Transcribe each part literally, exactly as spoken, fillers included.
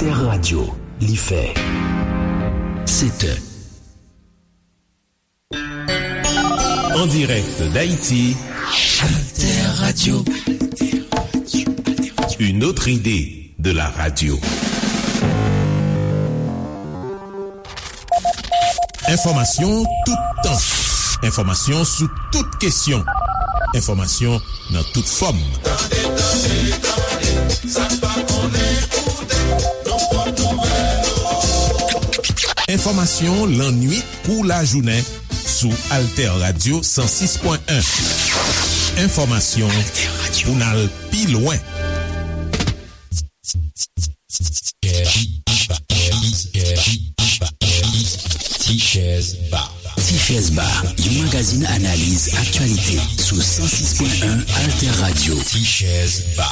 Alter Radio, li fè sèt è. En direct d'Haïti, Alter Radio. Une autre idée de la radio. Enfòmasyon toutan. Enfòmasyon sou tout kesyon. Enfòmasyon nan tout fòm. Tande, tande, tande, sa n pa konnen koute, nou pot nouvèl ou. Enfòmasyon lannuit kou lajounen sou Alter Radio san sis pwen en. Enfòmasyon pou n al pi lwen. Ti Chèz Ba. Ti Chèz Ba, yon magazin analiz aktyalite sou san sis pwen en Alter Radio. Ti Chèz Ba.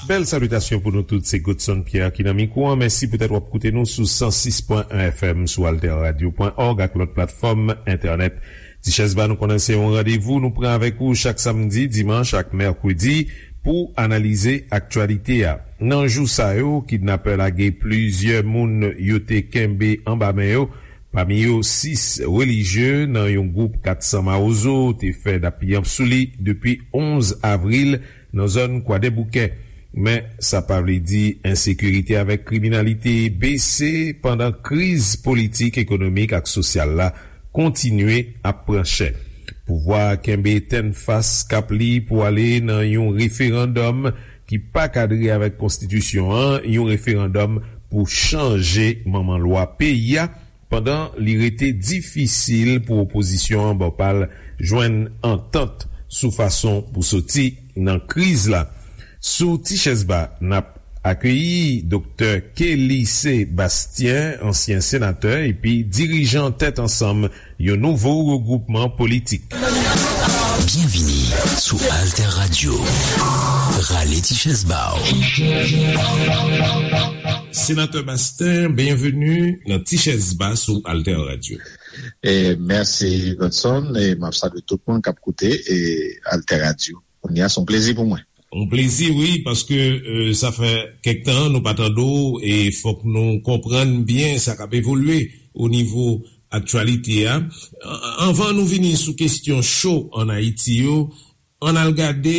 Bèl salitasyon pou nou tout, se Godson Pierre ki nan mikwo an. Mèsi poutèt w ap koute nou sou san sis pwen en F M, sou alter radio pwen org ak lòt platfòm entènèt. Ti Chèz Ba, nou konnen se yon randevou nou pran avèk ou chak samdi, dimanch ak mèkredi pou analize aktyalite a. Nan jou sa yo, kidnapè lage plizyè moun yo te kenbe anba men yo, pami yo sis relijye nan yon gwoup kat san mawozo te fè dappiyanp sou li depi onz avril nan zòn Kwadèboukè. Men, sa pa vle di ensekirite avèk kriminalite bese pandan kriz politik, ekonomik ak sosyal la kontinye ap pran chè. Pouvwa a kenbe tennfas kap li pou ale nan yon referandòm ki pa kadre avèk konstitisyon an, yon referandòm pou chanje manman lwa peyi a, pandan li rete difisil pou opozisyon an bò pa l jwenn antant sou fason pou soti nan kriz la. Sou Ti Chèz Ba, n ap akeyi Doktè Kelly Sébastien, ansyen senatè epi dirijan Tèt Ansanm, yon nouvo regwoupman politik. Byenvini sou Alter Radio. Rale ti chèz ba w. Senatè Bastien, byenveni nan Ti Chèz Ba sou Alter Radio. E mèsi, Godson, e m ap salye tout moun k ap koute, e Alter Radio. Kounye a, se yon plezi pou mwen. Yon plezi, wi, paske, e, sa fè kèk tan nou pa tande w, e fòk nou konprann byen sa k ap evolye o nivo aktyalite a. An-, anvan nou vini sou kesyon cho ann Ayiti yo, ann al gade,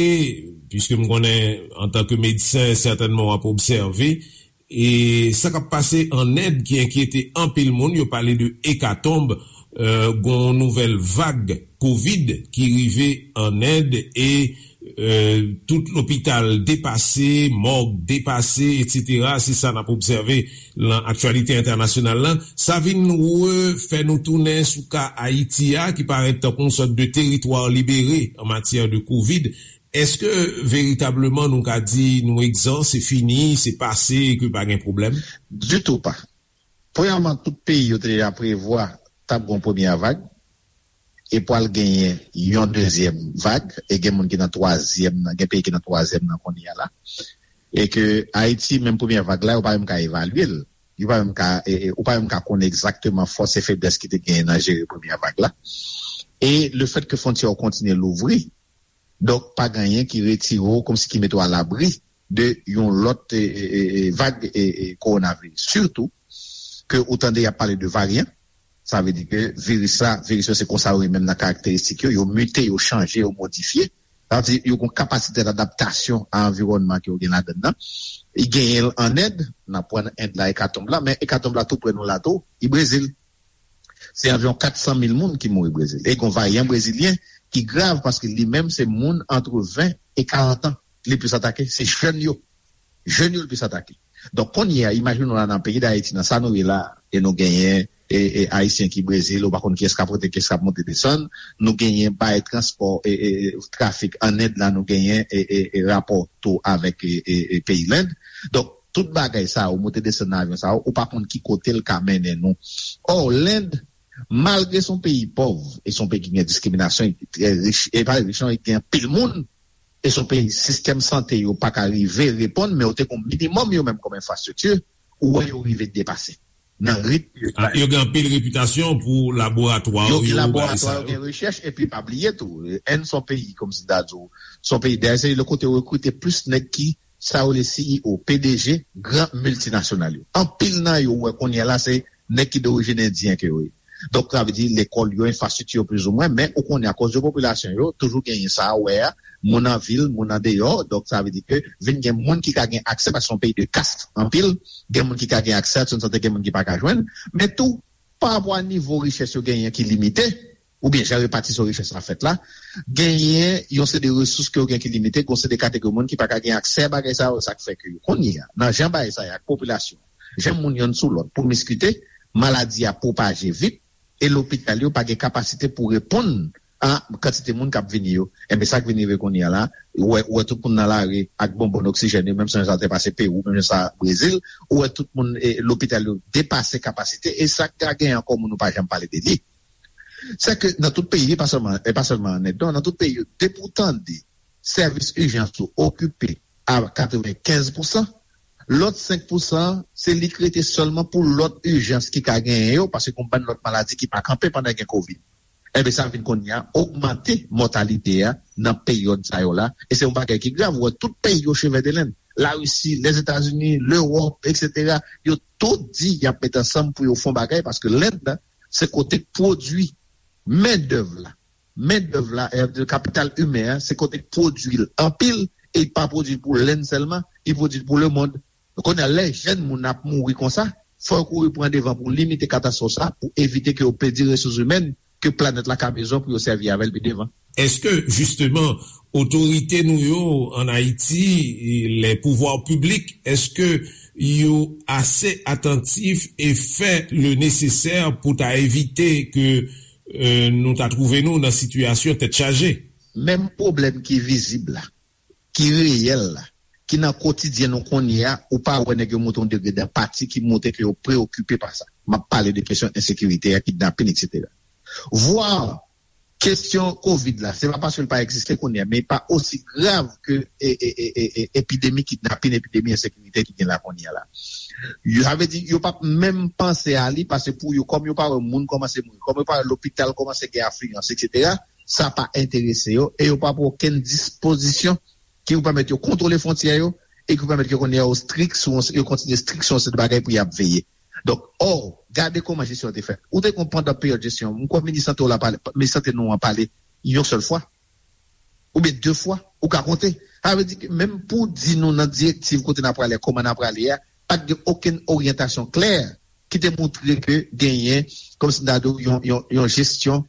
piske m konnen, antanke medsen, sètènman w ap obsève, e sa k ap pase ann End ki enkyete anpil moun. Yo pale de ekatonb, e, gon nouvèl vag kovid ki rive ann End, e, e, tout lopital depase, mòg depase, etsetera. Se sa n ap obsève nan aktyalite entènasyonal la. Sa vin refè nou tounen sou ka Ayiti a, ki parèt tankou yon sòt de teritwa libere an matyè de kovid. Èske veritableman nou ka di nou egzan, se fini, se pase, e ke pa gen pwoblèm? Ditou pa. Premyèman, tout peyi yo te deja prevwa t ap gen yon premyè vag, e pral genyen yon dezyèm vag, e gen moun ki nan twazyèm nan, gen peyi ki nan twazyèm nan kounye a la. E ke Ayiti, menm premyè vag la, yo pa menm ka evalye l. Yo pa menm ka, e, e, ou pa menm ka konnen egzakteman fòs e feblès ki te genyen nan jere premyè vag la. E lefètke fwontyè yo kontinye louvri, donk, pa gen anyen ki retire w, kòmsi ki mete w alabri de yon lòt, e, e, e, e, vag, e, e, kowonaviris. Sitou ke ou tande y ap pale de varyan, sa vle di ke viris la, viris yo se konsa yo ye menm nan karakteristik yo, yo mite, yo chanje, yo modifye. Sa vle di yo gen yon kapasite dadaptasyon a anviwònman ke yo gen ladann nan. Li genyen l ann End, n ap pran End la, ekatonb la, men ekatonb la tou prè nou la tou, li Brezil. Se anviwon kat san mil moun ki mouri Brezil. E gen yon varyan brezilyen ki grav paske li menm se moun antre ven e karant an li plis atake. Se jèn yo. Jèn yo l plis atake. Donk, kounye a, imajine w la nan peyi Dayiti, nan sa nou ye la, e nou genyen, e, e, Ayisyen ki Brezil, ou pa konn kiyès k ap rantre, kiyès k ap monte desann, nou genyen bay transpò, e, e, e, trafik ann End la, nou genyen, e, e, e, rapò tou avèk, e, e, e, peyi Lend. Donk, tout bagay sa yo, monte desann nan avyon sa yo, ou pa konn ki kote l ka mennen nou. Ò, Lend, malgre se yon peyi pòv, e se yon peyi ki gen diskriminasyon, e ki trè rich, e pa rich non, e gen anpil moun, e se yon peyi sistèm sante yo pa ka rive reponn, men yo te gen yon minimòm yo menm kòm enfrastrikti, ou wè yo rive depase nan ritm yo. Ah, yo gen anpil repitasyon pou laboratwa yo, yo gen laboratwa, yo gen rechèch, epi pa bliye tou, End se yon peyi, kòmsi m ta di w, se yon peyi, dayè se le kote yo rekrite plis nèg ki sa yo rele C E O, P D G, gran miltinasyonal yo. Anpil nan yo, ou wè kounye a la, se nèg ki dorijin endyen ke yo ye. Donk, sa vle di, lekòl yo, enfrastrikti yo, plizoumwen, men ou konnen, akoz de popilasyon yo, toujou genyen sa, wè a, moun an vil, moun an deyò, donk, sa vle di ke vin gen moun ki ka gen aksè, paske se yon peyi de kas, anpil, gen moun ki ka gen aksè a swen sante, gen moun ki pa ka jwenn, men tou, pa rapò a nivo richès yo genyen ki limite, oubyen jan repatisyon richès la fèt la, genyen yon seri de resous ke yo gen ki limite, gen yon seri de kategori moun ki pa ka gen aksè a bagay sa yo, sa k fè ke yo kounye a, nan jan bagay sa ye ak popilasyon, jan moun yonn sou lòt pwomiskite, maladi a pwopaje vit, e lopital yo pa gen kapasite pou reponn a kantite moun k ap vini yo. Enben, sa k vin rive kounye a la, ou wè, ou wè tout moun nan lari ak bonbòn oksijèn yo, menm jan sa te pase Pewou, menm jan sa Brezil, ou wè tout moun, e, lopital yo depase kapasite, e sa k ka gen ankò moun ou pa janm pale de li. Se ke nan tout peyi, e pa sèlman, e pa sèlman an End, non, nan tout peyi yo, depi w tande sèvis ijans ou okipe a katrevenkenz pousan, lòt senk pousan, se li k rete sèlman pou lòt ijans ki ka genyen yo, paske gen yon bann lòt maladi ki pa kanpe pandan gen kovid. Enben, sa vin kounye a ogmante mòtalite a nan peryòd sa yo la, e se yon bagay ki grav. Ou wè, tout peyi yo cheve de lenn, Larisi, Lèzetazini, Lewòp, etsetera, yo tout di y ap met ansanm pou yo fè yon bagay, paske Lend, se kote k pwodui mendèv la. Mendèv la, e, kapital imen an, se kote k pwodui l anpil, e l pa pwodui l pou Lend sèlman, li pwodui l pou lemonn. Kounye a, lè jèn moun ap mouri konsa, fò yo kouri pran devan pou limite katastwòf sa, pou evite ke yo pèdi resous imèn ke planèt la ka bezwen pou yo sèvi avè l pi devan. Èske, jisteman, otorite nou yo ann Ayiti, les pouvoirs publics, èske yo ase atantif e fè le nesesè pou ta evite ke, e, nou ta twouve nou nan sitiyasyon tèt chaje? Menm pwoblèm ki vizib la, ki reyèl la, ki nan kotidyen nou kounye a, ou pa wè nèg yo monte yon degre danpati ki montre ke yo preokipe pa sa. M ap pale de kesyon ensekirite a, kidnapin, etsetera. Vwa kesyon kovid la, se pa paske l pa egziste kounye a, men li pa osi grav ke, e, e, e, e, e, epidemi kidnapin, epidemi ensekirite ki gen la kounye a la. Yo, sa vle di, yo p ap menm panse a li, paske pou yo, kòm yo pa wè moun kòmanse mouri, kòm yo pa wè lopital kòmanse gen afliyans, etsetera, sa pa enterese yo, e yo pa pran okenn dispozisyon ki pou pèmèt yo kontwole fwontyè yo, e ki pou pèmèt yo konnen yo strik sou, yo kontinye strik sou yon seri de bagay pou y ap veye. Donk, ò, gade kòman jesyon an te fèt. Ou te konn pandan peryòd jesyon, m kwè minis sante w la pale, minis sante nou an pale yon sèl fwa, oubyen de fwa, ou ka konte. Sa vle di ke menm pou di nou nan direktiv kote n ap prale, kòman n ap prale a, pa t gen okenn oryantasyon klè ki te montre ke genyen, kòmsi n ta di w, yon, yon, yon jesyon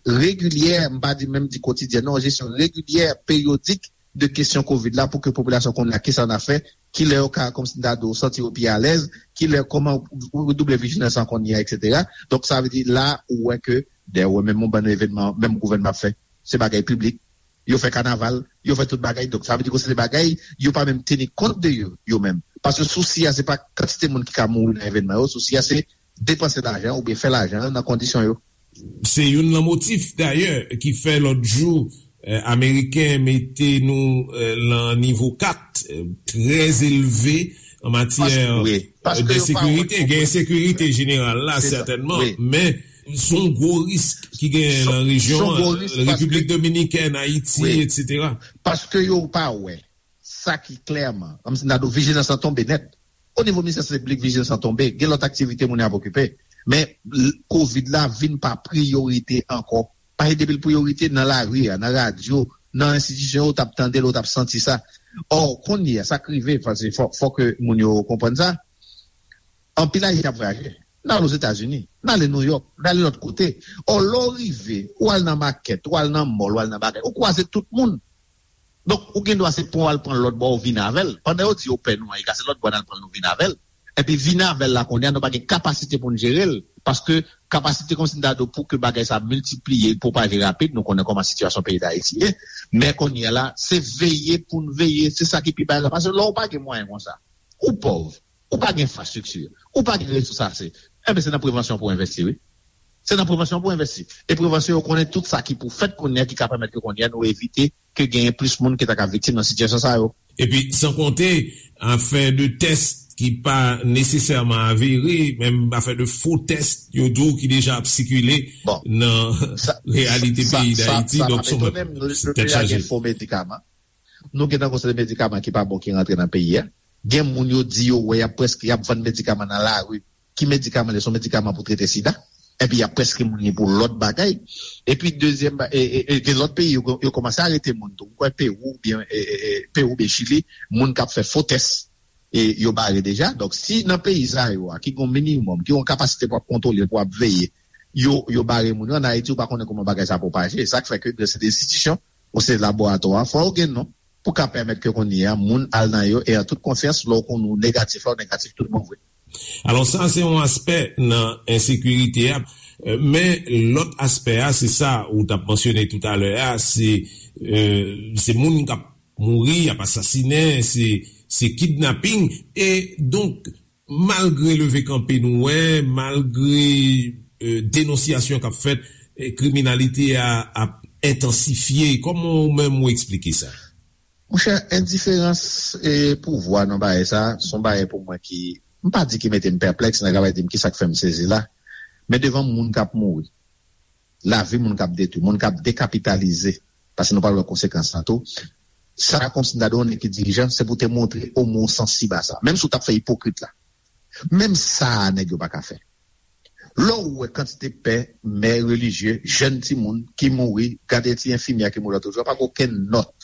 regilyè, m pa di menm di kotidyèn, non, yon jesyon regilyè, peryodik de kesyon kovid la pou ke popilasyon konnen a kisa n ap fè, kilè yo ka, kòmsi n ta di w, santi yo pi alèz, kilè, kòman pou redouble vijilans an kounye a, etsetera. Donk, sa vle di la, ou wè ke, dayè, ou wè menm yon bann evènman, menm gouvènman ap fè, se bagay piblik, yo fè kanaval, yo fè tout bagay. Donk, sa vle di ke se de bagay, yo pa menm teni kont de yo, yo menm. Paske sousi a, se pa kantite moun ki ka mouri nan evènman yo, sousi a, se depanse lajan oubyen fè lajan nan kondisyon yo. Se youn nan motif, dayè, ki fè lòt jou, eh, Ameriken mete nou, eh, nan nivo kat, eh, trè elve an matyè, wi, eh, de sekirite. Gen ensekirite jeneral la, sètènman, men se yon gwo risk ki gen nan rejyon an. Repiblik Dominikèn, Ayiti, etsetera. Paske yo pa wè sa ki klèman, kòmsi n ta di w, vijilans lan tonbe nèt. O nivo Ministè Sante Piblik, vijilans lan tonbe. Gen lòt aktivite moun yo ap okipe. Men, l-, kovid la vin pa priyorite ankò. Paske depi l priyorite, nan lari a, nan radyo, nan enstitisyon yo, w t ap tande l, w t ap santi sa. Ò, kounye a, sa k rive, paske fò, fò ke moun yo konprann sa. Anpil Ayisyen ap vwayaje. N ale Ozetazini, n ale Nouyòk, n ale lòt kote. Ò, lè w rive, ou al nan makèt, ou al nan mòl, ou al nan bagay, ou kwaze tout moun. Donk, ou gen dwa se pran w al pran l lòt bò, ou vin avè l. Pandan yo di yo pè nou an, e ka se lòt bò n al pran l, nou vin avè l. Epi vin avè l la, kounye a, nou pa gen kapasite pou n jere l. Paske kapasite kòmsi n ta di w pou ke bagay sa miltipliye, pwopaje rapid, nou konnen kòman sitiyasyon peyi Dayiti ye. Men kounye a la, se veye pou n veye, se sa ki pi bay la. Paske lè w pa gen mwayen konsa, ou pòv, ou pa gen enfrastrikti, ou pa gen resous ase, enben se nan prevansyon pou w envesti, wi. Se nan prevansyon pou w envesti. E prevansyon, yo konnen tout sa ki pou fèt kounye a ki ka pèmèt ke kounye a nou evite ke genyen plis moun ki ta ka viktim nan sitiyasyon sa yo. Epi, san konte, afè de tès ki pa nesesèman avere, menm afè de fo tès, yo di w ki deja ap sikile nan reyalite peyi Dayiti. Donk, se tèt chaje. Fo medikaman. Nou gentan gon seri de medikaman ki pa bon ki rantre nan peyi a. Gen moun yo di yo wè y ap prèske, y ap vann medikaman nan lari. Ki medikaman li? Se yon medikaman pou trete sida. Epi y ap prèske moun li pou lòt bagay. Epi dezyèm ba- e, e, e, gen lòt peyi yo, yo kòmanse arete moun tou. M kwè Pewou oubyen e, e, e, Pewou oubyen Chili, moun k ap fè fo tès, e yo bare deja. Donk si nan peyi sa yo a ki gen yon minimòm, ki gen yon kapasite pou ap kontwole, pou ap veye, yo, yo bare moun yo, ann Ayiti ou pa konnen kòman bagay sa pwopaje. Sa k fè ke gen se de enstitisyon, ou se laboratwa, fò yo gen non pou ka pèmèt ke kounye a moun al nan yo e an tout konfyans, lè w konnen w negatif la, w negatif tout bon vre. Alò sa se yon aspè nan ensekirite a. Men lòt aspè a, se sa ou t ap mansyone toutalè a, se se moun k ap mouri, y ap asasinen, se se kidnaping. E donk malgre leve kanpe nou wè, malgre denonsyasyon k ap fèt, kriminalite a ap entansifye. Kòman ou menm ou eksplike sa? Monchè, endiferans e pouvwa nan bagay sa, se yon bagay pou mwen ki, m pa di ki mete m pèplèks, nèg la pral di m kisa k fè m sezi la. Men devan moun k ap mouri, lavi moun k ap detwi, moun k ap dekapitalize, paske nou pral wè konsekans lan tou. Sa kòmsi m ta di w nèg ki dirijan, se pou te montre omwen w sansib a sa. Menm si w t ap fè ipokrit la. Menm sa a nèg yo pa ka fè. Lè w wè kantite pè, mè relijye, jèn timoun ki mouri, gade ti enfimyè ki mouri lòt jou a, pa gen okenn nòt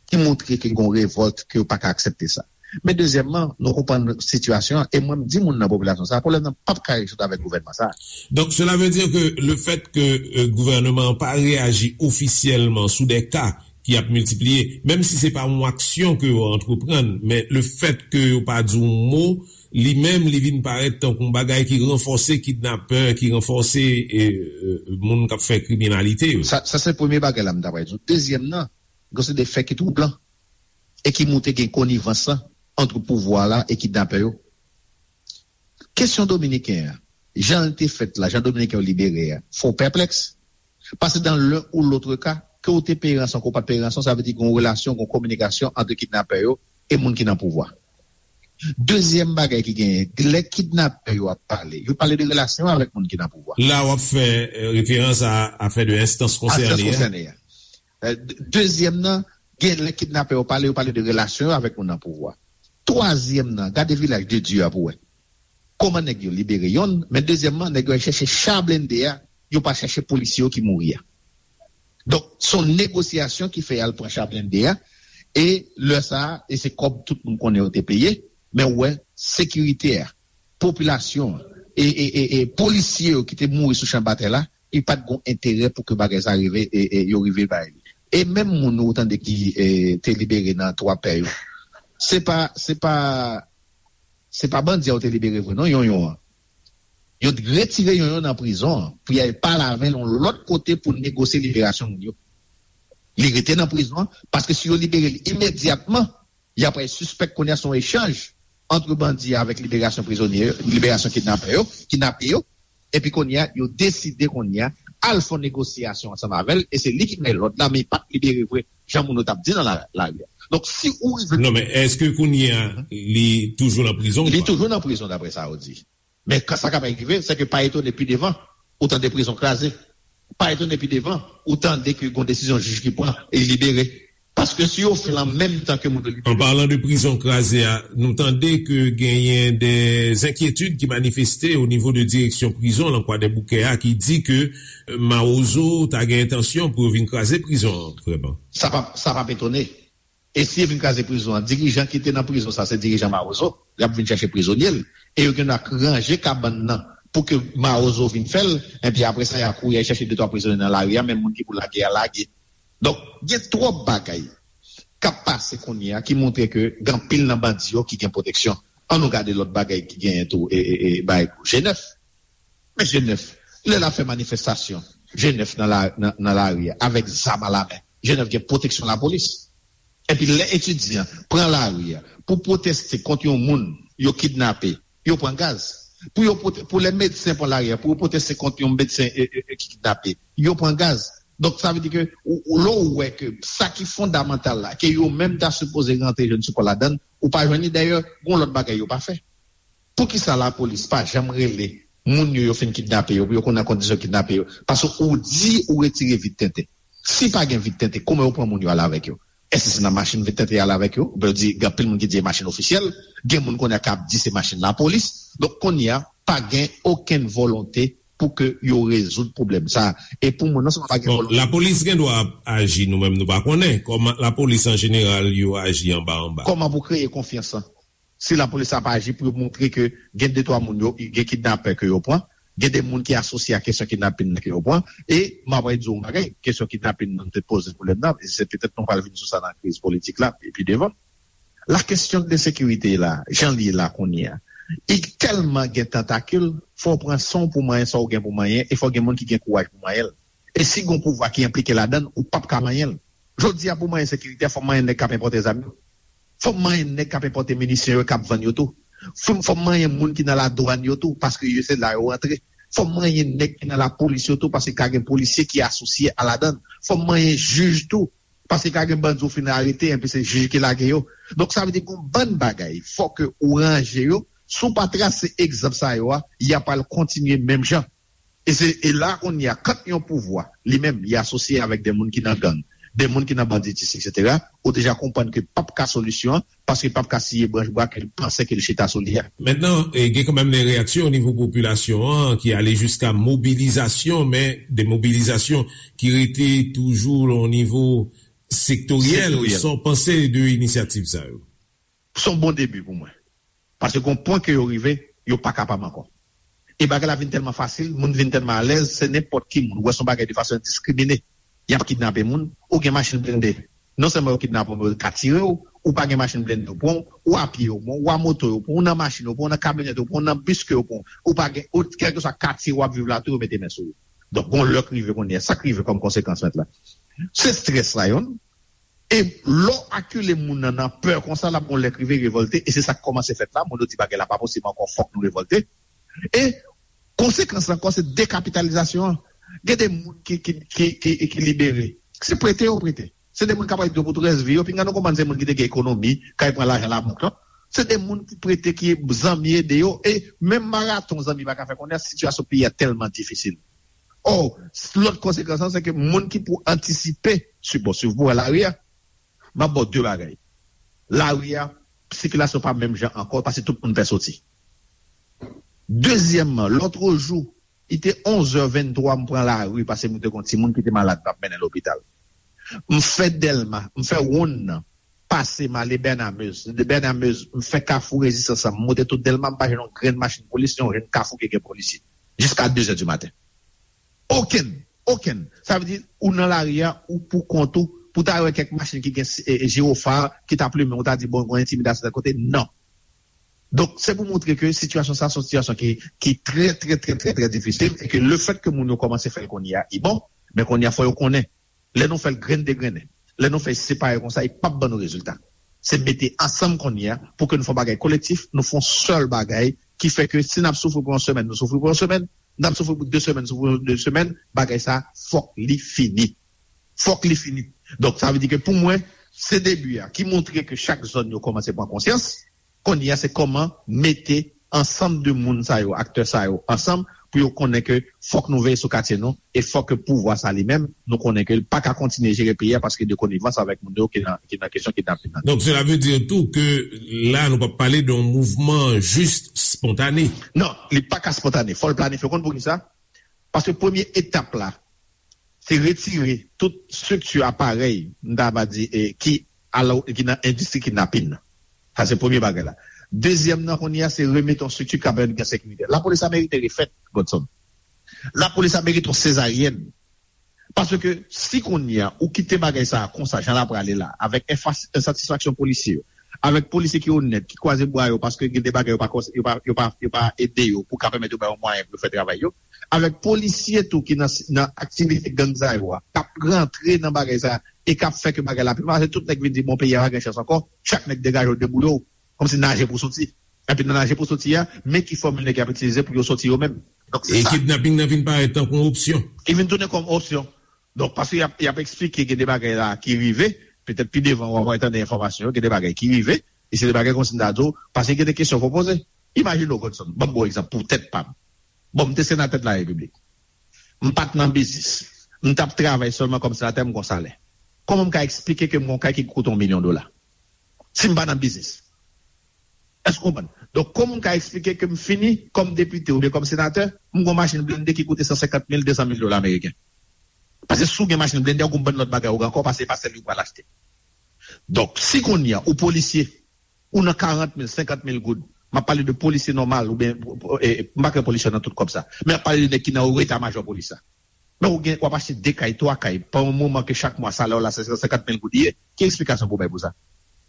ki montre ke gen yon revòlt, ke yo pa ka aksepte sa. Men dezyèmman, nou konprann sitiyasyon an, e mwen m di moun nan popilasyon sa a, pwoblèm nan p ap ka rezoud avèk gouvènman sa a. Donc cela veut dire que le fait que euh, gouvènman an pa reyaji ofisyèlman sou des cas ki ap miltipliye, menm si se pa yon aksyon ke yo antreprann, men le fait que yo pa di yon mo, li menm li vin parèt tankou yon bagay ki ranfòse kidnapè, ki ranfòse e, e, moun k ap fè kriminalite yo. Sa, sa se premye bagay la m ta pral di w. Dezyèm nan, gen se de fè ki twoublan e ki montre gen konivans lan ant pouvwa la e kidnapè yo. Kesyon dominiken an, jan l te fèt la, jan dominiken yo libere a, fè w pèplèks. Paske dans l'un ou l'autre cas, ke w te peye ranson, ke w pa t peye ranson, sa vle di gen yon relasyon, gen yon kominikasyon ant kidnapè yo e moun ki nan pouvwa. Dezyèm bagay ki genyen, lè kidnapè yo ap pale, yo pale de relasyon avèk moun ki nan pouvwa. La w ap fè referans a afè de enstans konsène a. Dezyèm nan, gen lè kidnapè yo pale, yo pale de relasyon yo avèk moun nan pouvwa. Twazyèm nan, gade Vilaj de Dye a pou wè. Kòman nèg yo libere yonn, men dezyèmman, nèg yo al chèche cha blende a, yo pa chèche polisye yo ki mouri a. Donk, se yon negosyasyon ki fè y al pran cha blende a, e lè sa a, e se kòb tout moun konnen yo te peye, men ou wè, sekirite a, popilasyon an, e, e, e, e polisye yo ki te mouri sou chan batay la, li pa t gen enterè pou ke bagay sa rive, e, e yo rive bay li. E menm moun ou tande ki e, te libere nan twa pè yo, se pa, se pa, se pa bandi a yo te libere vre non, Yonyon an. Yo t retire Yonyon nan prizon an pou y al pale avè l yon lòt kote pou negosye liberasyon moun yo. Li rete nan prizon an, paske si yo libere l imedyatman, y ap pral sispèk kounye a se yon echanj ant bandi avèk liberasyon prizonye yo, liberasyon kidnapè yo, kidnape yo, epi kounye a, yo deside kounye a al fè yon negosyasyon ansanm avè l, e se li ki bay lòd la, men li pa t libere vre, jan moun yo t ap di nan la, lari a. Donk, si ou rive. Non, men èske kounye a, li toujou nan prizon ou pa? Li toujou nan prizon, daprè sa yo di. Men sa k ap rive, se ke pa etone pi devan, ou tande prizon kraze. Pa etone pi devan, ou tande ke gen yon desizyon jij ki pran, e li libere. Paske si yo fè l an menm tan ke moun yo libere. An palan de prizon kraze a, nou tande ke genyen de enkyetid ki manifeste o nivo de direksyon prizon lan Kwadèboukè a ki di ke Mawozo ta gen entansyon pou yo vin kraze prizon an, vrèman. Sa p ap, sa p ap etone. E si yo vin kraze prizon an, dirijan ki te nan prizon sa, se dirijan Mawozo, y ap vin chèche prizonye l. E yo gen dwa ranje kabann nan pou ke Mawozo vin fè l, enpi apre sa, y a kouri al chèche de twa prizonye nan lari a, menm moun ki pou lage a lage. Donk, gen twòp bagay k ap pase kounye a ki montre ke gen anpil nan bandi yo ki gen pwoteksyon. Ann nou gade lòt bagay ki genyen tou, e, e, e, bagay G nèf. Men G nèf, lè l ap fè manifestasyon, G nèf nan la, nan, nan lari a, avèk zam alamen, G nèf gen pwoteksyon lapolis. Epi lè etidyan pran lari a pou pwoteste kont yon moun yo kidnape, yo pran gaz. Pou yo pwote-, pou lè medsen pran lari a pou yo pwoteste kont yon medsen e, e, e, ki kidnape, yo pran gaz. Donk, sa vle di ke ou, ou, lè w wè ke sa ki fondamantal la, ke yo menm ta sipoze rantre jwenn sipò ladan l, ou pa jwenn li. Dayè, gen yon lòt bagay yo pa fè. Poukisa lapolis pa janm rele moun yo yo fin kidnape yo, pou yo konn nan kondisyon yo kidnape yo? Paske ou di ou retire vit tenten. Si pa gen vit tenten, kòman yo pran moun yo ale avèk yo? Èske se nan machin yo tenten al avèk yo? Oubyen yo di, gen anpil moun ki di se machin ofisyèl, gen moun kounye a k ap di se machin lapolis. Donk, kounye a, pa gen okenn volonte pou ke yo rezoud pwoblèm sa a. E pou mwen, non sèlman pa gen Bon, volonte. Lapolis gen dwa ap aji, nou menm nou pa konnen. Kòman lapolis an jeneral yo aji anba anba? Kòman pou kreye konfyans lan? Si lapolis ap aji pou yo montre ke gen de twa moun yo, gen kidnapè ke yo pran, gen de moun ki asosye a kesyon kidnapin nan ke yo pran, e m ap di w yon bagay, kesyon kidnapin nan te poze pwoblèm nan, e se petèt nou pral vin sou sa nan kriz politik la, epi devan. La kesyon de sekirite la, jan li ye la kounye a, li tèlman gen tantakil, fò w pran san w pou manyen sa w gen pou manyen, e fò gen moun ki gen kouraj pou manyen l. E si gon pouvwa ki enplike ladan l, ou p ap ka manyen l. Jodi a, pou manyen sekirite a, fò manyen nèg k ap enpòte zam yo. Fò manyen nèg k ap enpòte minisyon yo, k ap vann yo tou. Fò, fò manyen moun ki nan ladwàn yo tou, paske yo se la yo rantre. Fò manyen nèg ki nan lapolis yo tou, paske ka gen polisye ki asosye a ladan l. Fò manyen jij tou, paske ka gen bandi ou fin arete, enpi se jij ki lage yo. Donk, sa vle di gon bann bagay, fò ke ou ranje yo. Si w pa trase egzanp sa yo a, y ap al kontinye menm jan. E se, e la kounye a, kan yon pouvwa, li menm, li asosye avèk de moun ki nan gang, de moun ki nan banditis, etsetera, ou deja konprann ke p ap ka solisyon an, paske p ap ka siye branch bwa ke l panse ke l chita sou li a. Mentnan, e, gen kanmenm de reyaksyon o nivo popilasyon an ki ale jiska mobilizasyon, men de mobilizasyon ki rete toujou o nivo sektoryèl. Sektoryèl. Sa w panse de inisyativ sa yo? Se yon bon debi pou mwen. Paske gon pwen ke yo rive, yo pa kapab ankò. E bagay la vin tèlman fasil, moun vin tèlman alèz, se nenpòt ki moun. Ou wè se yon bagay de fason endiskrimine. Y ap kidnape moun, ou gen machin blende. Non sèlman yo kidnape w, men yo ka tire w, ou pa gen machin blende yo pran w, ou a pye yo pran w, ou a moto yo pran w, ou nan machin yo pran w, ou nan kamyonèt yo pran w, ou nan bis ke yo pran w, ou pa gen, ou, kèlkeswa katye w ap viv la tou, yo mete men sou ou. Donk, gon lè k rive kounye a, sa k rive kòm konsekans mentnan? Se estrès la, youn. E lè w akile moun nan nan pè konsa, l ap gon lè k rive revòlte, e se sa k kòmanse fèt la. Moun yo di bagay la pa posib ankò, fòk nou revòlte. E konsekans la ankò, se dekapitalizasyon an. Gen de moun ki, ki, ki, ki, ki libere. Se prete yo prete. Se de moun k ap rete pou tout rès vi yo. Pinga nou konprann se moun ki te gen ekonomi, k al pran lajan labank lan. Se de moun ki prete, ki zanmi ede yo. E menm maraton zanmi pa ka fè konnen sitiyasyon peyi a tèlman difisil. Ò, lòt konsekans lan, se ke moun ki pou antisipe, si, bon, si w pou wè lari a, m ap ba w de bagay. Lari a, sikilasyon pa menm jan ankò, paske tout moun pè soti. Dezyèmman, lòtrejou, li te onz è venntwa, m pran lari, paske m te gon timoun ki te malad, m t ap mennen lopital. M fè Dèlma, m fè wonn nan, pase, m ale Bènamez. De Bènamez, m fè Kafou Rezistans lan, m monte tout Dèlma, m pa jwenn yon grenn machin polis, yon grenn kafou ki gen polisye. Jiska de zè di maten. Okenn, okenn. Sa vle di, ou nan lari a, ou pou kont ou, pou ta wè kèk machin ki gen, e, e, jiwofa, ki t ap limen, ou ta di, bon, gon entimidasyon tèl kote. Non. Donk, se pou montre ke sitiyasyon sa, se yon sitiyasyon ki, ki trè, trè, trè, trè, trè difisil, e ke lefèt ke moun yo kòmanse fè l kounye a, li bon, men kounye a, fò yo konnen. Lè nou fè l grenn degrennen, lè nou fè l separe konsa, li p ap ban nou rezilta. Se mete ansanm kounye a pou ke nou fè yon bagay kolektif, nou fè yon sèl bagay ki fè ke si n ap soufri pou yon semèn, nou soufri pou yon semèn, n ap soufri pou de semèn, soufri pou de semèn, bagay sa, fòk li fini. Fòk li fini. Donk, sa vle di ke pou mwen, se debi a ki montre ke chak zòn yo kòmanse pran konsyans. Kounye a, se kòman mete ansanm de moun sa yo, aktè sa yo, ansanm pou yo konnen ke fòk nou veye sou katye nou e fòk ke pouvwa sa li menm, nou konnen ke l pa ka kontinye jere peyi a paske de konivans avèk moun yo ki nan, ki nan kesyon kidnapin nan. Donk, sela vle di tou ke la, nou p ap pale de yon mouvman jis spontane. Non, li pa ka spontane. Fò l planifye. Ou konn poukisa? Paske premye etap la, se retire tout estrikti aparèy, m ta va di, e, ki, alò, ki nan endistri kidnapin nan. Sa se premye bagay la. Dezyèm nan, kounye a, se remete yon estrikti k ap pèmèt gen sekirite. Lapolis la merite refèt, Godson. Lapolis la merite yon sezaryèn. Paske si kounye a, ou kite bagay sa a konsa, jan l ap prale la, avèk enfas-, ensatisfaksyon polisye yo, avèk polisye ki onèt, ki kwaze bra yo, paske gen de bagay yo pa kons-, yo pa, yo pa, yo pa ede yo pou ka pèmèt yo bay yo mwayen pou yo fè travay yo. Avèk polisye tou ki nan, nan aktivite gang sa yo a, k ap rantre nan bagay sa a, e k ap fè ke bagay la pi mal, se tout nèg vin di, bon, peyi a pa gen chans ankò, chak nèg degaje w, deboule w, kòmsi naje pou soti. Epi nan naje pou soti a, men ki fòmil nèg y ap itilize pou yo soti yo menm. Donk, se E sa. Kidnaping nan vin parèt tankou yon opsyon. Li vin tounen kòm opsyon. Donk, paske y ap, y ap eksplike gen de bagay la ki rive, petèt pi devan w ap tande enfòmasyon yo, gen de bagay ki rive, e se de bagay kòmsi m ta di w, paske gen de kesyon fò poze. Imajine w, Godson, ban m bon egzanp, pou tèt pa m. Bon, m te senatè de la repiblik. M pa t nan biznis. M t ap travay sèlman kòm senatè, m gon salè. Kòman m ka eksplike ke m gen yon kay ki koute yon milyon dola? Si m pa nan biznis. Èske w konprann? Donk, kòman m ka eksplike ke m fini kòm depite oubyen kòm senatè, m gen yon machin blende ki koute san senkant mil, de san mil dola ameriken? Paske si w gen machin blende, ou gen yon bann lòt bagay ou gen ankò, paske se pa sèl li ou pral achte. Donk, si kounye a, ou polisye, ou nan karant mil, senkant mil goud, m ap pale de polisye nòmal, oubyen, e, e, m pa kwè polisye nan tout kòb sa, men m ap pale de nèg ki nan wo eta majò polis la. Men ou gen, w ap achte de kay, twa kay, pa yon moman ke chak mwa salè w la se san senkant mil goud li ye. Ki eksplikasyon pou w bay pou sa?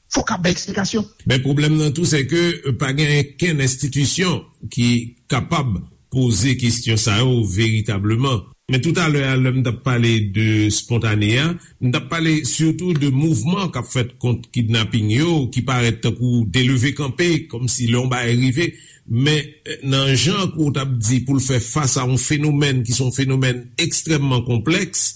Fòk ap bay eksplikasyon. Men pwoblèm nan tou, se ke, euh, pa gen okenn enstitisyon ki kapab poze kesyon sa yo veritableman. Men toutalè a, lè m t ap pale de spontane a, m t ap pale sitou de mouvman k ap fèt kont kidnaping yo, ki parèt tankou de leve kanpe, kòmsi lè yon bagay rive. Men, eh, nan jan ke w t ap di pou l fè fas a yon fenomèn ki se yon fenomèn ekstrèmman konplèks,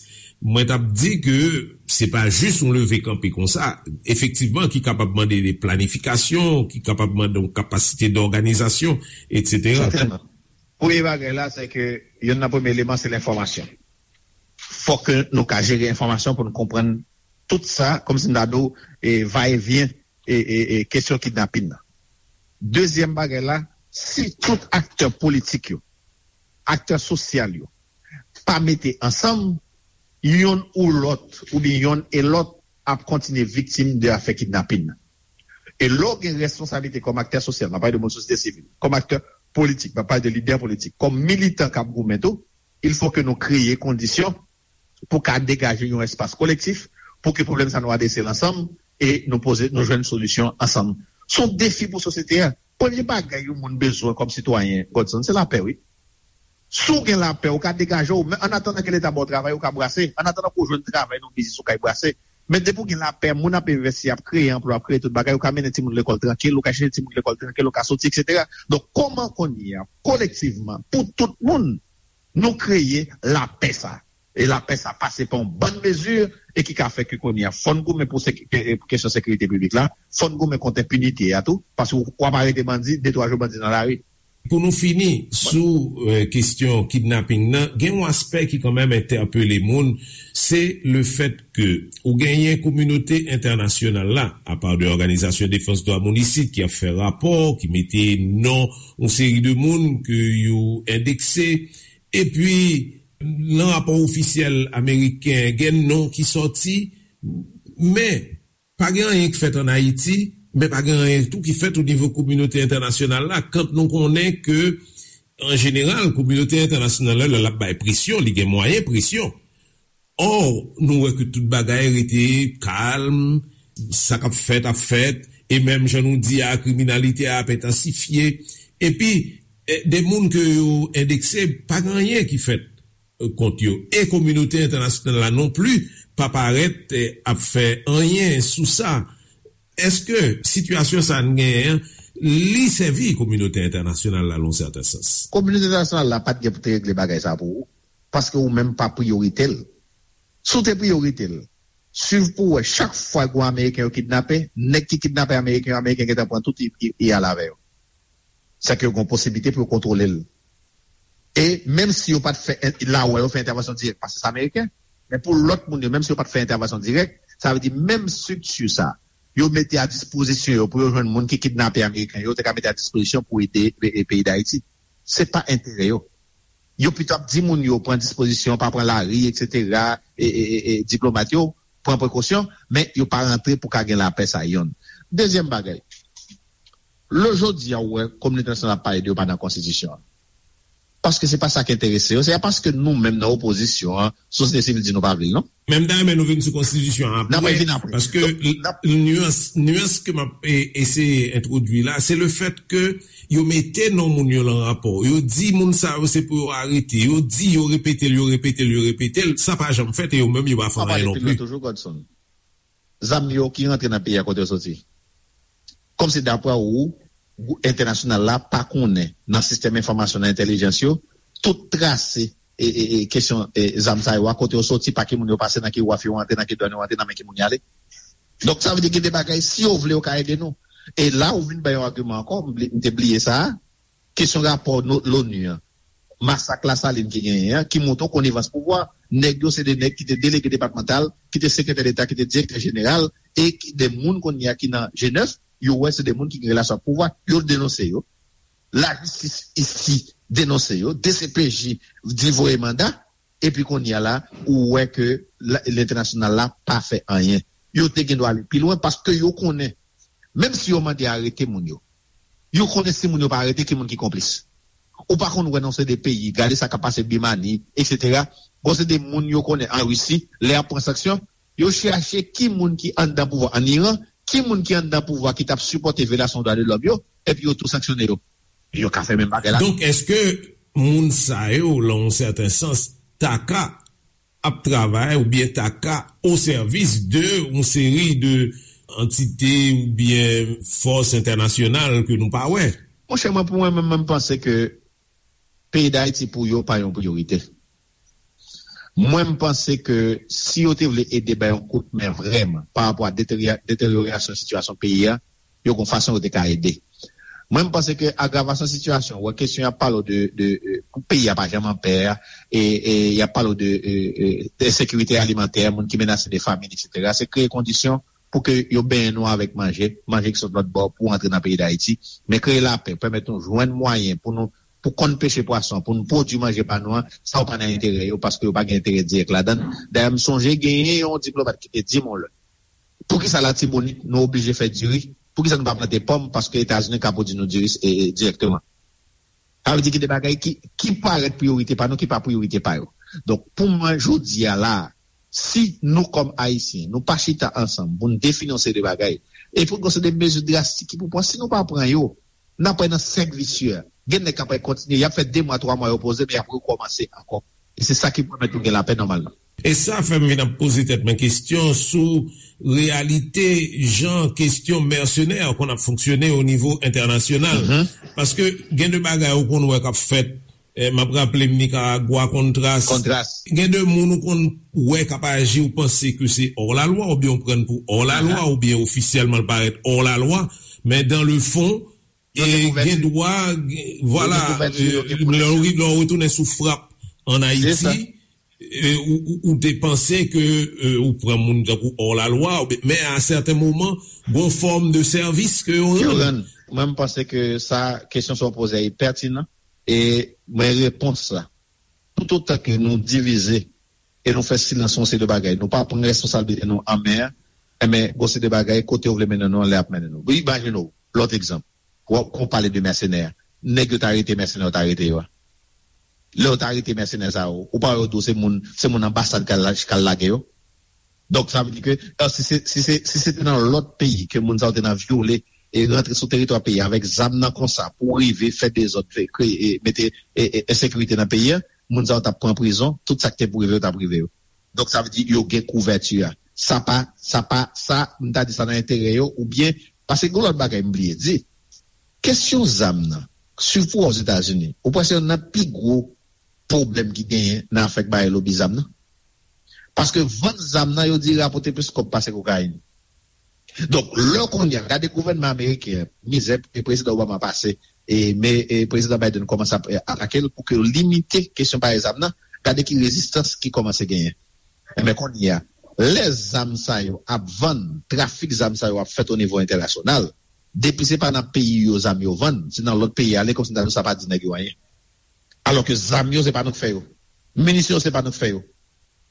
mwen t ap di ke se pa jis yon leve kanpe konsa, efektivman, ki kapab mande de planifikasyon, ki kapab mande yon kapasite dòganizasyon, etsetera. Sètènman. Premye bagay la, se ke youn nan premye eleman, se lenfòmasyon. Fòk ke nou ka jere enfòmasyon pou nou konprann tout sa, kòmsi m ta di w, e, va e vyen, e, e, e, kesyon kidnapin nan. Dezyèm bagay la, si tout aktè politik yo, aktè sosyal yo, pa mete ansanm, yonn ou lòt, oubyen yonn e lòt, ap kontinye viktim de afè kidnapin nan. E lè w gen responsablite kòm aktè sosyal, m ap pale de moun sosyete sivil, kòm aktè politik, m ap pale de lidè politik, kòm militan k ap goumen tou, il faut que nou kreye kondisyon pou ka degaje yon espas kolektif, pou ke pwoblèm sa nou adrese l ansanm e nou poze, nou jwenn solisyon ansanm. Se yon defi pou sosyete a. Premye bagay yon moun bezwen kòm sitwayen, Godson, se lapè, wi. Si w gen lapè, ou ka degaje w, men annatandan ke Leta ba w travay, ou ka brase. Annatandan ke w jwenn travay nan yon biznis, ou ka brase. Men depi w gen lapè, moun ap envesti, ap kreye anplwa, ap kreye tout bagay, ou ka mennen timoun lekòl trankil, ou ka chèche timoun lekòl trankil, ou ka soti, etsetera. Donk, kòman kounye a, kolektivman, pou tout moun, nou kreye lapè sa? E lapè sa pase pa yon bann mezi e ki ka fè ke kounye a, fò n goumen pou seki-, ke-, kesyon sekirite piblik la, fò n goumen kont enpinite a tou, paske w, w ap arete bandi, de twa jou bandi nan lari. Pou nou fini sou, eh, kesyon kidnaping nan, gen yon aspè ki kanmenm entèpele moun, se le fèt ke ou genyen kominote entènasyonal la, apa de òganizasyon defans dwa moun isit ki ap fè rapò, ki mete non yon seri de moun ke yo endekse, epi nan rapò ofisyèl ameriken, gen non ki sòti, men pa gen anyen k fèt ann Ayiti, men pa gen anyen tou ki fèt o nivo kominote entènasyonal la, kan nou konnen ke, an jeneral, kominote entènasyonal la, lè l ap bay presyon, li gen mwayen presyon. Ò, nou wè ke tout bagay rete kalm, sa k ap fèt ap fèt, e menm jan nou di a, kriminalite a ap entansifye. Epi, eh, de moun ke yo endekse, pa gen anyen ki fèt, eh, kont yo. E kominote entènasyonal la non pli pa parèt, eh, ap fè anyen sou sa. Èske sitiyasyon sa a n genyen an, li sèvi kominote entènasyonal la, nan yon sèten sans? Kominote entènasyonal la pa t gen pou te regle bagay sa a pou ou, paske ou menm pa priyorite l. Si w te priyorite l, swiv pou w wè, chak fwa gwo Ameriken yo kidnape, nèg ki kidnape Ameriken yo, Ameriken gentan pran tout, y, y, y al avè yo. Sèke yo gen posiblite pou yo kontwole l. E menm si yo pa t fè en-, la wè yo fè entèvansyon dirèk, paske se Ameriken, men pou lòt moun yo, menm si yo pa t fè entèvansyon dirèk, sa vle di menm estrikti sa, yo mete a dispozisyon yo pou yo jwenn moun ki kidnape Ameriken yo, yo te ka mete a dispozisyon pou ede, e, e, peyi Dayiti. Se pa enterè yo. Yo pito ap di moun yo pran dispozisyon, pa pran lari, etsetera, e, e, e, e diplomat yo pran prekosyon, men yo pa rantre pou ka gen lapè sa yonn. Dezyèm bagay, lè jodi a ou wè kominote entènasyonal ap pale de yo pa nan konstitisyon an. Paske se pa sa ki enterese yo, se pa paske nou menm nan opozisyon an, sosyete sivil di nou pa vle l, non. Men m ta renmen nou vin sou konstitisyon an apre, paske nyans, nyans ke m ap, e, eseye entwodui la, se le fèt ke yo mete non moun yo lan rapò. Yo di moun sa yo se pou yo arete. Yo di, yo repete l, yo repete l, yo repete l. Sa pa janm fèt e yo menm yo pa fè anyen non pli. Toujou, Godson. Zam yo ki rantre nan peyi a, kote yo soti? Kòmsi dapre ou, gwoup entènasyonal la pa konnen nan sistèm enfòmasyon, nan entèlijans yo, tout trase e, e, e kesyon, e, zam sa yo a, kote yo soti, pa ki moun yo pase, nan ki waf yo antre, nan ki dwàn yo antre, nan men ki moun y ale. Donk, sa vle di gen de bagay, si yo vle, yo ka ede nou. E la, ou vin bay yon agiman ankò, m bli-, m te bliye sa a, kesyon rapò no-, loni an, masak Lasalin ki genyen an, ki montre yon konivans pouvwa. Nèg yo se de nèg ki te delege depatmantal, ki te sekretè deta, ki te direktè jeneral, e ki de moun kounye a ki nan G nèf, yo wè se de moun ki gen relasyon ak pouvwa, yo denonse yo. Lajistis isi denonse yo, D C P J di voye manda, epi kounye a la, ou wè ke la- lentènasyonal la pa fè anyen. Yo te gen dwa ale pi lwen paske yo konnen, menm si yo mande arete moun yo, yo konnen si moun yo pa arete, ki moun ki konplis. Ou pa konn wè nan se de peyi, gade sa k ap pase Bimani, etsetera. Bon, se de moun yo konnen an Risi, lè y ap pran sanksyon, yo chache ki moun ki anndan pouvwa an Iran, ki moun ki anndan pouvwa ki t ap sipòte vyolasyon dwa de lòm yo, epi yo tou sanksyone yo. Yo ka fè menm bagay la. Donk, èske moun sa yo, nan yon sèten sans, ta ka ap travay oubyen ta ka o sèvis de yon seri de antite oubyen fòs entènasyonal ke nou pa wè? Monchè, mwen, pou mwen menm, mwen panse ke peyi Dayiti pou yo pa yon priyorite. Mwen, m panse ke si yo te vle ede bay yon kout men vrèman pa rapò a deterya- deteryorasyon sitiyasyon peyi a, yo gon fason yo te ka ede. Mwen, m panse ke agravasyon sitiyasyon, wè kesyon y ap pale w de, de, e, pou peyi a pa janm an pè a, e, e y ap pale w de, e, e, de sekirite alimantè, moun ki menase de famin, etsetera. Se kreye kondisyon pou ke yo benyen nou avèk manje, manje ki sot lòt bò pou antre nan peyi Dayiti, men kreye lapè, pèmèt nou jwenn mwayen pou nou, pou konn peche pwason, pou nou pwodui manje pa nou an, sa yo pa nan enterè yo, paske yo pa gen enterè dirèk ladan l. Dayè, m sonje genyen yon diplomat ki te di m yon lè, poukisa Latibonit nou oblije fè diri? Poukisa nou pa plante pòm? Paske Etazini ka pwodui nou diri, e, e, dirèkteman. Sa vle di gen de bagay ki, ki parèt priyorite pa nou, ki pa priyorite pa yo. Donk, pou mwen, jodi a la, si nou, kòm Ayisyen, nou pa chita ansanm pou n defini yon seri de bagay, e pou n gon seri de mezi drastik ki pou pran, si nou pa pran yo, n ap pran nan sèk visye. Gen nèg k ap kontinye, y ap fè de mwa, twa mwa yo poze, men y ap rekòmanse ankò. E se sa ki pèmèt nou gen lapè nòmalman. E sa fè m vin ap poze tèt mwen kesyon sou reyalite jan kesyon mèsenè konn ap fonksyone o nivo entènasyonal. Mhm. Paske gen de bagay ou konn wè k ap fèt, eh, m ap raple m Nikaragwa, Kontras. Kontras. Gen de moun ou konn wè k ap aji, ou panse ke se hors la loi, oubyen ou pran pou hors la loi, aha, oubyen ofisyèlman l parèt hors la loi, men dans le fond, e gen dwa, gen- vwala, lè w ri- lè w retounen sou frap ann Ayiti, e, ou, ou, ou te panse ke, e, ou pran moun tankou hors la loi, oubyen- men a sèten moman, gon fòm de sèvis ke yo rann. Mwen, m panse ke sa, kesyon sa w poze a, e pètinan, e mwen, repons la, toutotan ke nou divize e nou fè silans yon seri de bagay, nou pa pran responsablite nou an men, enben, gon seri de bagay, kote yo vle mennen nou an, lè ap mennen nou. Imajine w, lòt egzanp, w ap, w ap pale de mèsenè. Nèg yo ta rete mèsenè, yo ta rete yo a. Lè yo ta rete mèsenè sa yo, ou pa wè yo di w se moun, se moun anbasad k al, k al lage yo? Donk, sa vle di ke, e, si se, si se, si se te nan lòt peyi ke moun sa yo te nan vyole e rantre sou teritwa peyi avèk zam nan konsa pou rive fè dezòd, fè, kreye, e, mete, e, e, ensekirite nan peyi a, moun sa yo t ap pran prizon, tout sa k te pou rive yo t ap rive yo. Donk, sa vle di yo gen kouvèti a. Sa pa, sa pa, sa, m ta di sa nan enterè yo, oubyen, paske gen lòt bagay m bliye di. Kesyon zam nan, sipou Ozetazini, ou panse se youn nan pi gwo pwoblèm ki genyen nan afè k bay lobi zam nan? Paske vann zam nan, yo di, rapòte plis kòb pase kokayin. Donk, lè kounye a, gade gouvènman ameriken an, mizè e prezidan Obama pase, e, men, e, prezidan Biden kòmanse ap, e, atake l pou ke yo limite kesyon bay zam nan, gade ki rezistans ki kòmanse genyen. Enben, kounye a, lè zam sa yo ap vann, trafik zam sa yo ap fèt o nivo entènasyonal, depi se pa nan peyi yo zam yo vann, se nan lòt peyi ale, kòmsi m ta di w sa pa di nèg yo anyen. Alòske zam yo, se pa nou k fè yo. Minisyon yo, se pa nou k fè yo.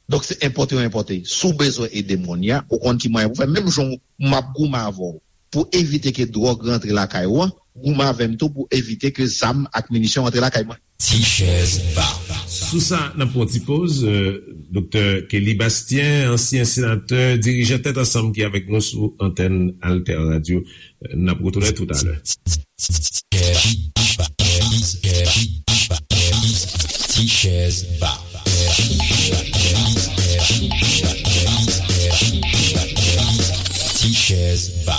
Donk, se enpòte yo enpòte. Si w bezwen ede m kounye a, ou konn ki mwayen pou w fè. Menm jan m ap goumen avè w pou evite ke dwòg rantre lakay ou an, goumen avè m tou pou evite ke zam ak minisyon rantre lakay mwen. Ti chèz ba. Sou sa, n ap pran ti poz. Euh, Doktè Kelly Bastien, ansyen senatè, dirijan Tèt Ansanm ki avèk nou sou antèn Alter Radio. Euh, n ap retounen toutalè. Ti chèz ba. Ti chèz ba.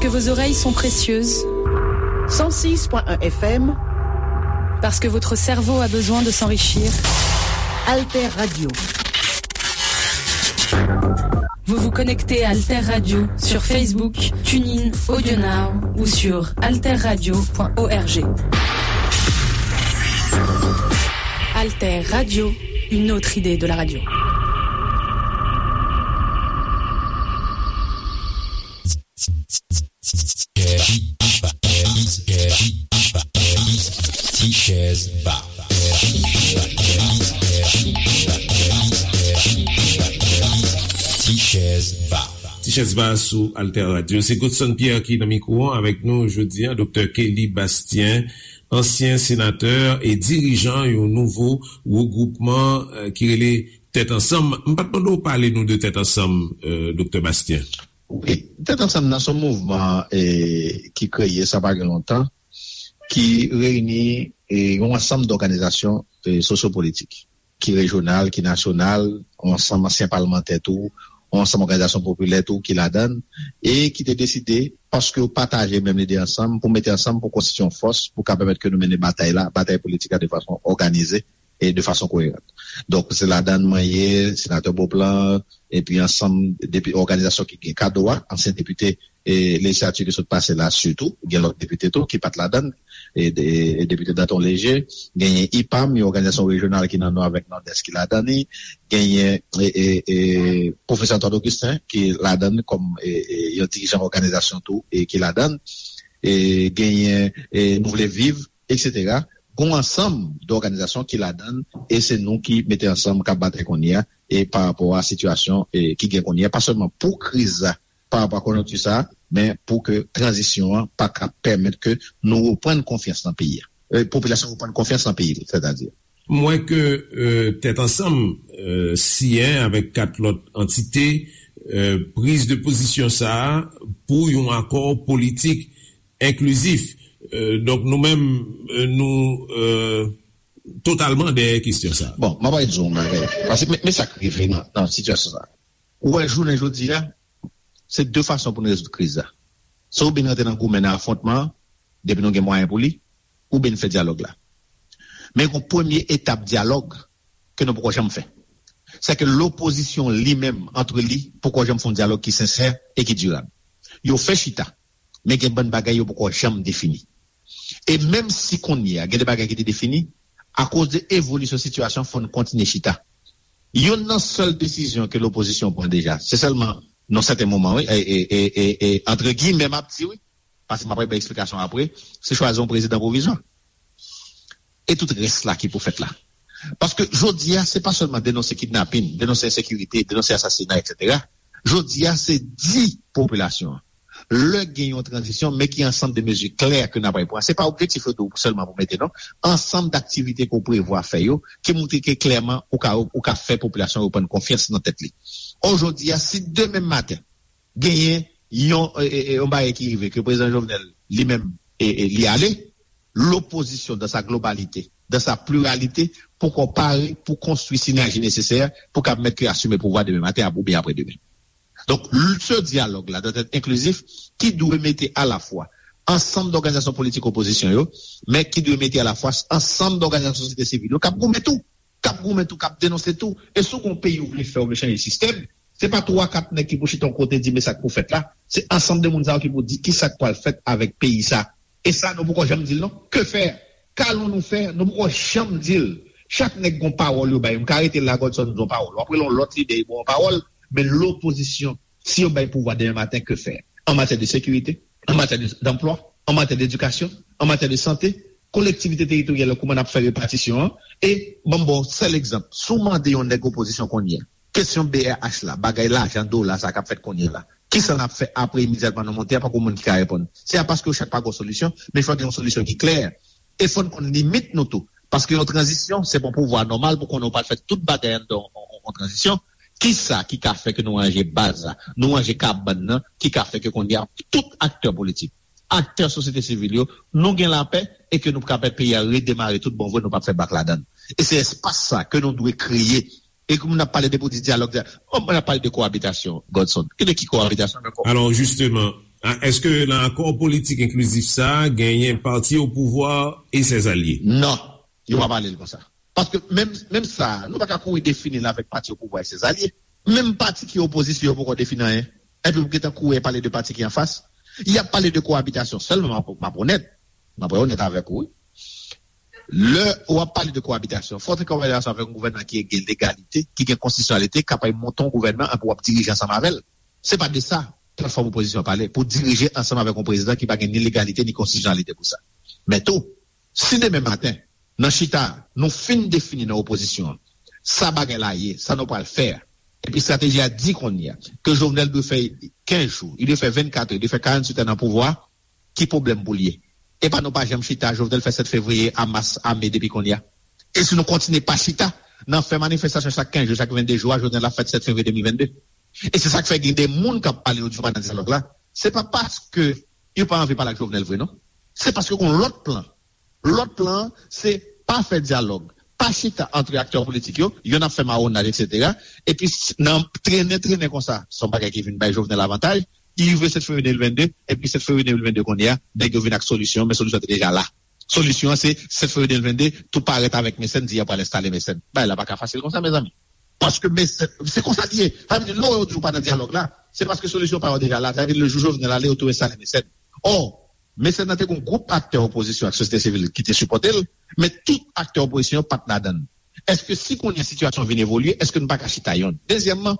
Vos oreilles sont précieuses. Cent six point un F M. Parce que votre cerveau a besoin de s'enrichir. Alter Radio. Vous vous connectez à Alter Radio sur Facebook, TuneIn, AudioNow ou sur alterradio point org. Alter Radio, une autre idée de la radio. Ti chèz ba. Ti chèz ba. Ti chèz ba sou Alter Radio. Se Godson Pierre ki nan mikwo an avèk nou jodi a, Doktè Kelly Bastien, ansyen senatè e dirijan yon nouvo regwoupman, eh, ki rele Tèt Ansanm. M pa t mande w pale nou de Tèt Ansanm, eh, Doktè Bastien. Wi, Tèt Ansanm nan se yon mouvman, eh, ki kreye sa pa gen lontan, ki reyini, eh, yon ansanm dòganizasyon, eh, sosyopolitik, ki rejyonal, ki nasyonal, yon ansanm ansyen palmantè tou, yon ansanm òganizasyon popilè tou ki ladan l, e ki te deside, paske yo pataje menm lide ansanm, pou mete ansanm pou konstitye yon fòs pou ka pèmèt ke nou mennen batay la, batay politik la de fason òganize e de fason koyeran. Donk, se ladan l mwen ye, senatè Beauplan, epi ansanm depi òganizasyon ki gen kado a, ansyen depite, e lejislati ki sot pase la sitou, gen lòt depite tou ki pa t ladan l, e, e, e depite Danton Léger, genyen ipam, yon òganizasyon rejyonal ki nan Nò avèk Nòdès ki ladan li, genyen, e, e, e, pwofesè Antoine Augustin ki ladan l kòm, e, e, yon dirijan òganizasyon tou e ki ladan l, e, genyen, e, Nou Vle Viv, etsetera. Gon ansanm dòganizasyon ki ladan l, e se nou ki mete ansanm k ap batay kounye a, e pa rapò a sitiyasyon, e, ki gen kounye a, pa sèlman pou kriz la, pa rapò a konjonkti sa a, men pou ke tranzisyon an pa ka pèmèt ke nou reprann konfyans nan peyi a. E, popilasyon reprann konfyans nan peyi l, sètadi. M wè ke, e, Tèt Ansanm, e, siyen avèk kat lòt antite, e, priz de pozisyon sa a pou yon akò politik enklizif. E, donk, nou menm, e, nou, e, totalman dèyè kesyon sa a. Bon, m ap di w yon bagay. Paske men, men sa k rive nan, nan sitiyasyon sa a. Ou wè, jounen jodi a, se de fason pou n rezoud kriz la. Se oubyen n rantre nan goumen, nan afwontman an, depi nou gen mwayen pou li, oubyen n fè dyalòg la. Men gon premye etap dyalòg ke nou poko janm fè. Se ke lopozisyon li menm, antre li, poko janm fè yon dyalòg ki sensè e ki dirab. Yo fè chita, men gen bann bagay yo poko janm defini. E menm si kounye a, gen de bagay ki te defini, akoz de evolisyon sitiyasyon, fò n kontinye chita. Youn nan sèl desizyon ke lopozisyon pran deja, se sèlman nan sèten moman, wi, e, e, e, e, e, antre giyimè, m ap di, wi, paske m ap bay eksplikasyon apre, se chwazi yon prezidan pwovizwa. E tout rès la ki pou fèt la. Paske jodi a, se pa sèlman denonse kidnapin, denonse ensekirite, denonse asasina, etsetera. Jodi a, se di popilasyon an, lè gen yon tranzisyon, men ki ansanm de mezi klè ke n ap pran. Se pa objektif yo tou sèlman pou mete, non. Ansanm daktivite ke w prevwa fè yo, ki montre ke klèman ou ka, ou ka fè popilasyon an reprann konfyans nan tèt li. Ò, jodi a, si demen maten, genyen yon, e, e, e, yon bagay ki rive, ke prezidan Jovenel, li menm, e, e, li ale, lopozisyon, dans sa globalité, dans sa pluralité, poko pare pou konstwi sinèji nesesè pou ka pèmèt ke asime pouvwa demen maten ap-, oubyen apre demen. Donk, l-, se dyalòg la dwèt èt enklizif, ki dwe mete alafwa ansanm dòganizasyon politik opozisyon yo, men ki dwe mete alafwa ansanm dòganizasyon sosyete sivil yo k ap goumen tou, k ap goumen tou, k ap denonse tou. E si w gen yon peyi ou vle fè, ou vle chanje sistèm, se pa twa kat nèg ki pou chita yon kote di, men sa k pou fèt la. Se ansanm de moun sa yo ki pou di kisa k pral fèt avèk peyi sa. E sa, nou poko janm di l non. Que faire? Qu'allons-nous faire? Nou poko janm di l. Chak nèg gon pawòl yo bay. M ka rete la, Godson, m di yon pawòl. W ap rele yon lòt lidè, li ba w yon pawòl. Men lopozisyon, si yo bay pouvwa demen maten, que faire? En matière de sécurité, en matière de, d'emploi, en matière d'éducation, en matière de santé, kolektivite teritoryal yo, kouman n ap fè repatisyon an? E ban m ba w sèl egzanp. Si w mande yon nèg opozisyon kounye a, kesyon B R H la, bagay lajan dola sa k ap fèt kounye a la, kisa n ap fè apre imedyatman nou monte a? Poko moun ki ka reponn. Se a paske yo chak pa gen yon solisyon, men fò gen yon solisyon ki klè. E fò n konn limit nou tou. Paske yon tranzisyon, se pa yon pouvwa nòmal pou konnen w pral fè tout bagay anndan yon, yon, yon tranzisyon. Kisa ki ka fè ke nou ranje baz la, nou ranje kabann nan, ki ka fè ke kounye a tout aktè politik, aktè sosyete sivil yo, nou gen lapè e ke nou ka pèmèt peyi a redemare tout bon vre, nou p ap fè bak ladan l. E se espas sa ke nou dwe kreye. E ke moun ap pale de pou di dyalòg, dyalòg. Bon, moun ap pale de koabitasyon, Godson. Ki de ki koabitasyon ankò? Alò, jisteman, A, èske nan akò politik enklizif sa a, genyen pati o pouvwa e ses alye? Non, yo pa pale l konsa. Paske menm, menm sa, nou pa ka kouri defini l avèk pati o pouvwa e ses alye. Menm pati ki opozisyon, yo poko defini anyen. Epi pou gentan kouri pale de pati ki anfas. Y ap pale de koabitasyon sèlman, m ap, m ap onèt. M ap onèt avèk ou, wi. Lè w ap pale de koabitasyon, fò w te koabitasyon avèk yon gouvènman ki gen legalite, ki gen konstitisyonalite, kapab monte yon gouvènman epi w ap dirije ansanm avè l. Se pa de sa platfòm opozisyon an pale, pou dirije ansanm avèk yon prezidan ki pa gen ni legalite ni konstitisyonalite pou sa. Men tou, si demen maten, nan chita, nou fin defini nan opozisyon an, sa bagay la ye, sa nou pral fè a, epi estrateji a di kounye a, ke Jovenel dwe fè kenz jou, li dwe fè vennkat è, li dwe fè karanntuit è nan pouvwa, ki pwoblèm pou l ye? E pa nou pa janm chita, Jovenel fè sèt fevriye a mas a me depi kounye a. E si nou kontinye pa chita, nan fè manifestasyon chak kenz jou, chak vennde jou a, Jovenel ap fèt sèt fevriye de mil vennde. E se sa k fè gen de moun k ap pale yo di yo pa nan dyalòg la. Se pa paske yo pa anvi pale ak Jovenel vre, non. Se paske gen yon lòt plan. Lòt plan an, se pa fè dyalòg, pa chita antre aktè politik yo, yonn ap fè mawonaj, etsetera. Epi, s- nan trennen, trennen konsa, se yon bagay ki vin bay Jovenel avantaj. Li rive sèt fevriye de mil vennde, epi sèt fevriye de mil vennde kounye a, nèg yo vin ak solisyon, men solisyon an te deja la. Solisyon an se sèt fevriye de mil vennde, tou parèt avèk Mecène, di y ap pral enstale Mecène. Bagay la pa ka fasil konsa, mezanmi. Paske Mecène, se konsa li ye. Sa vle di, lè yo di w pa nan dyalòg la, se paske solisyon pa yo deja la. Sa vle di, le jou Jovenel ale, yo tou enstale Mecène. Ò, Mecène nan te gen yon gwoup aktè opozisyon ak sosyete sivil ki te sipòte l, men tout aktè opozisyon yo pa t ladan l. Èske si kounye a sitiyasyon vin evolye, èske nou pa ka chita yonn? Dezyèmman,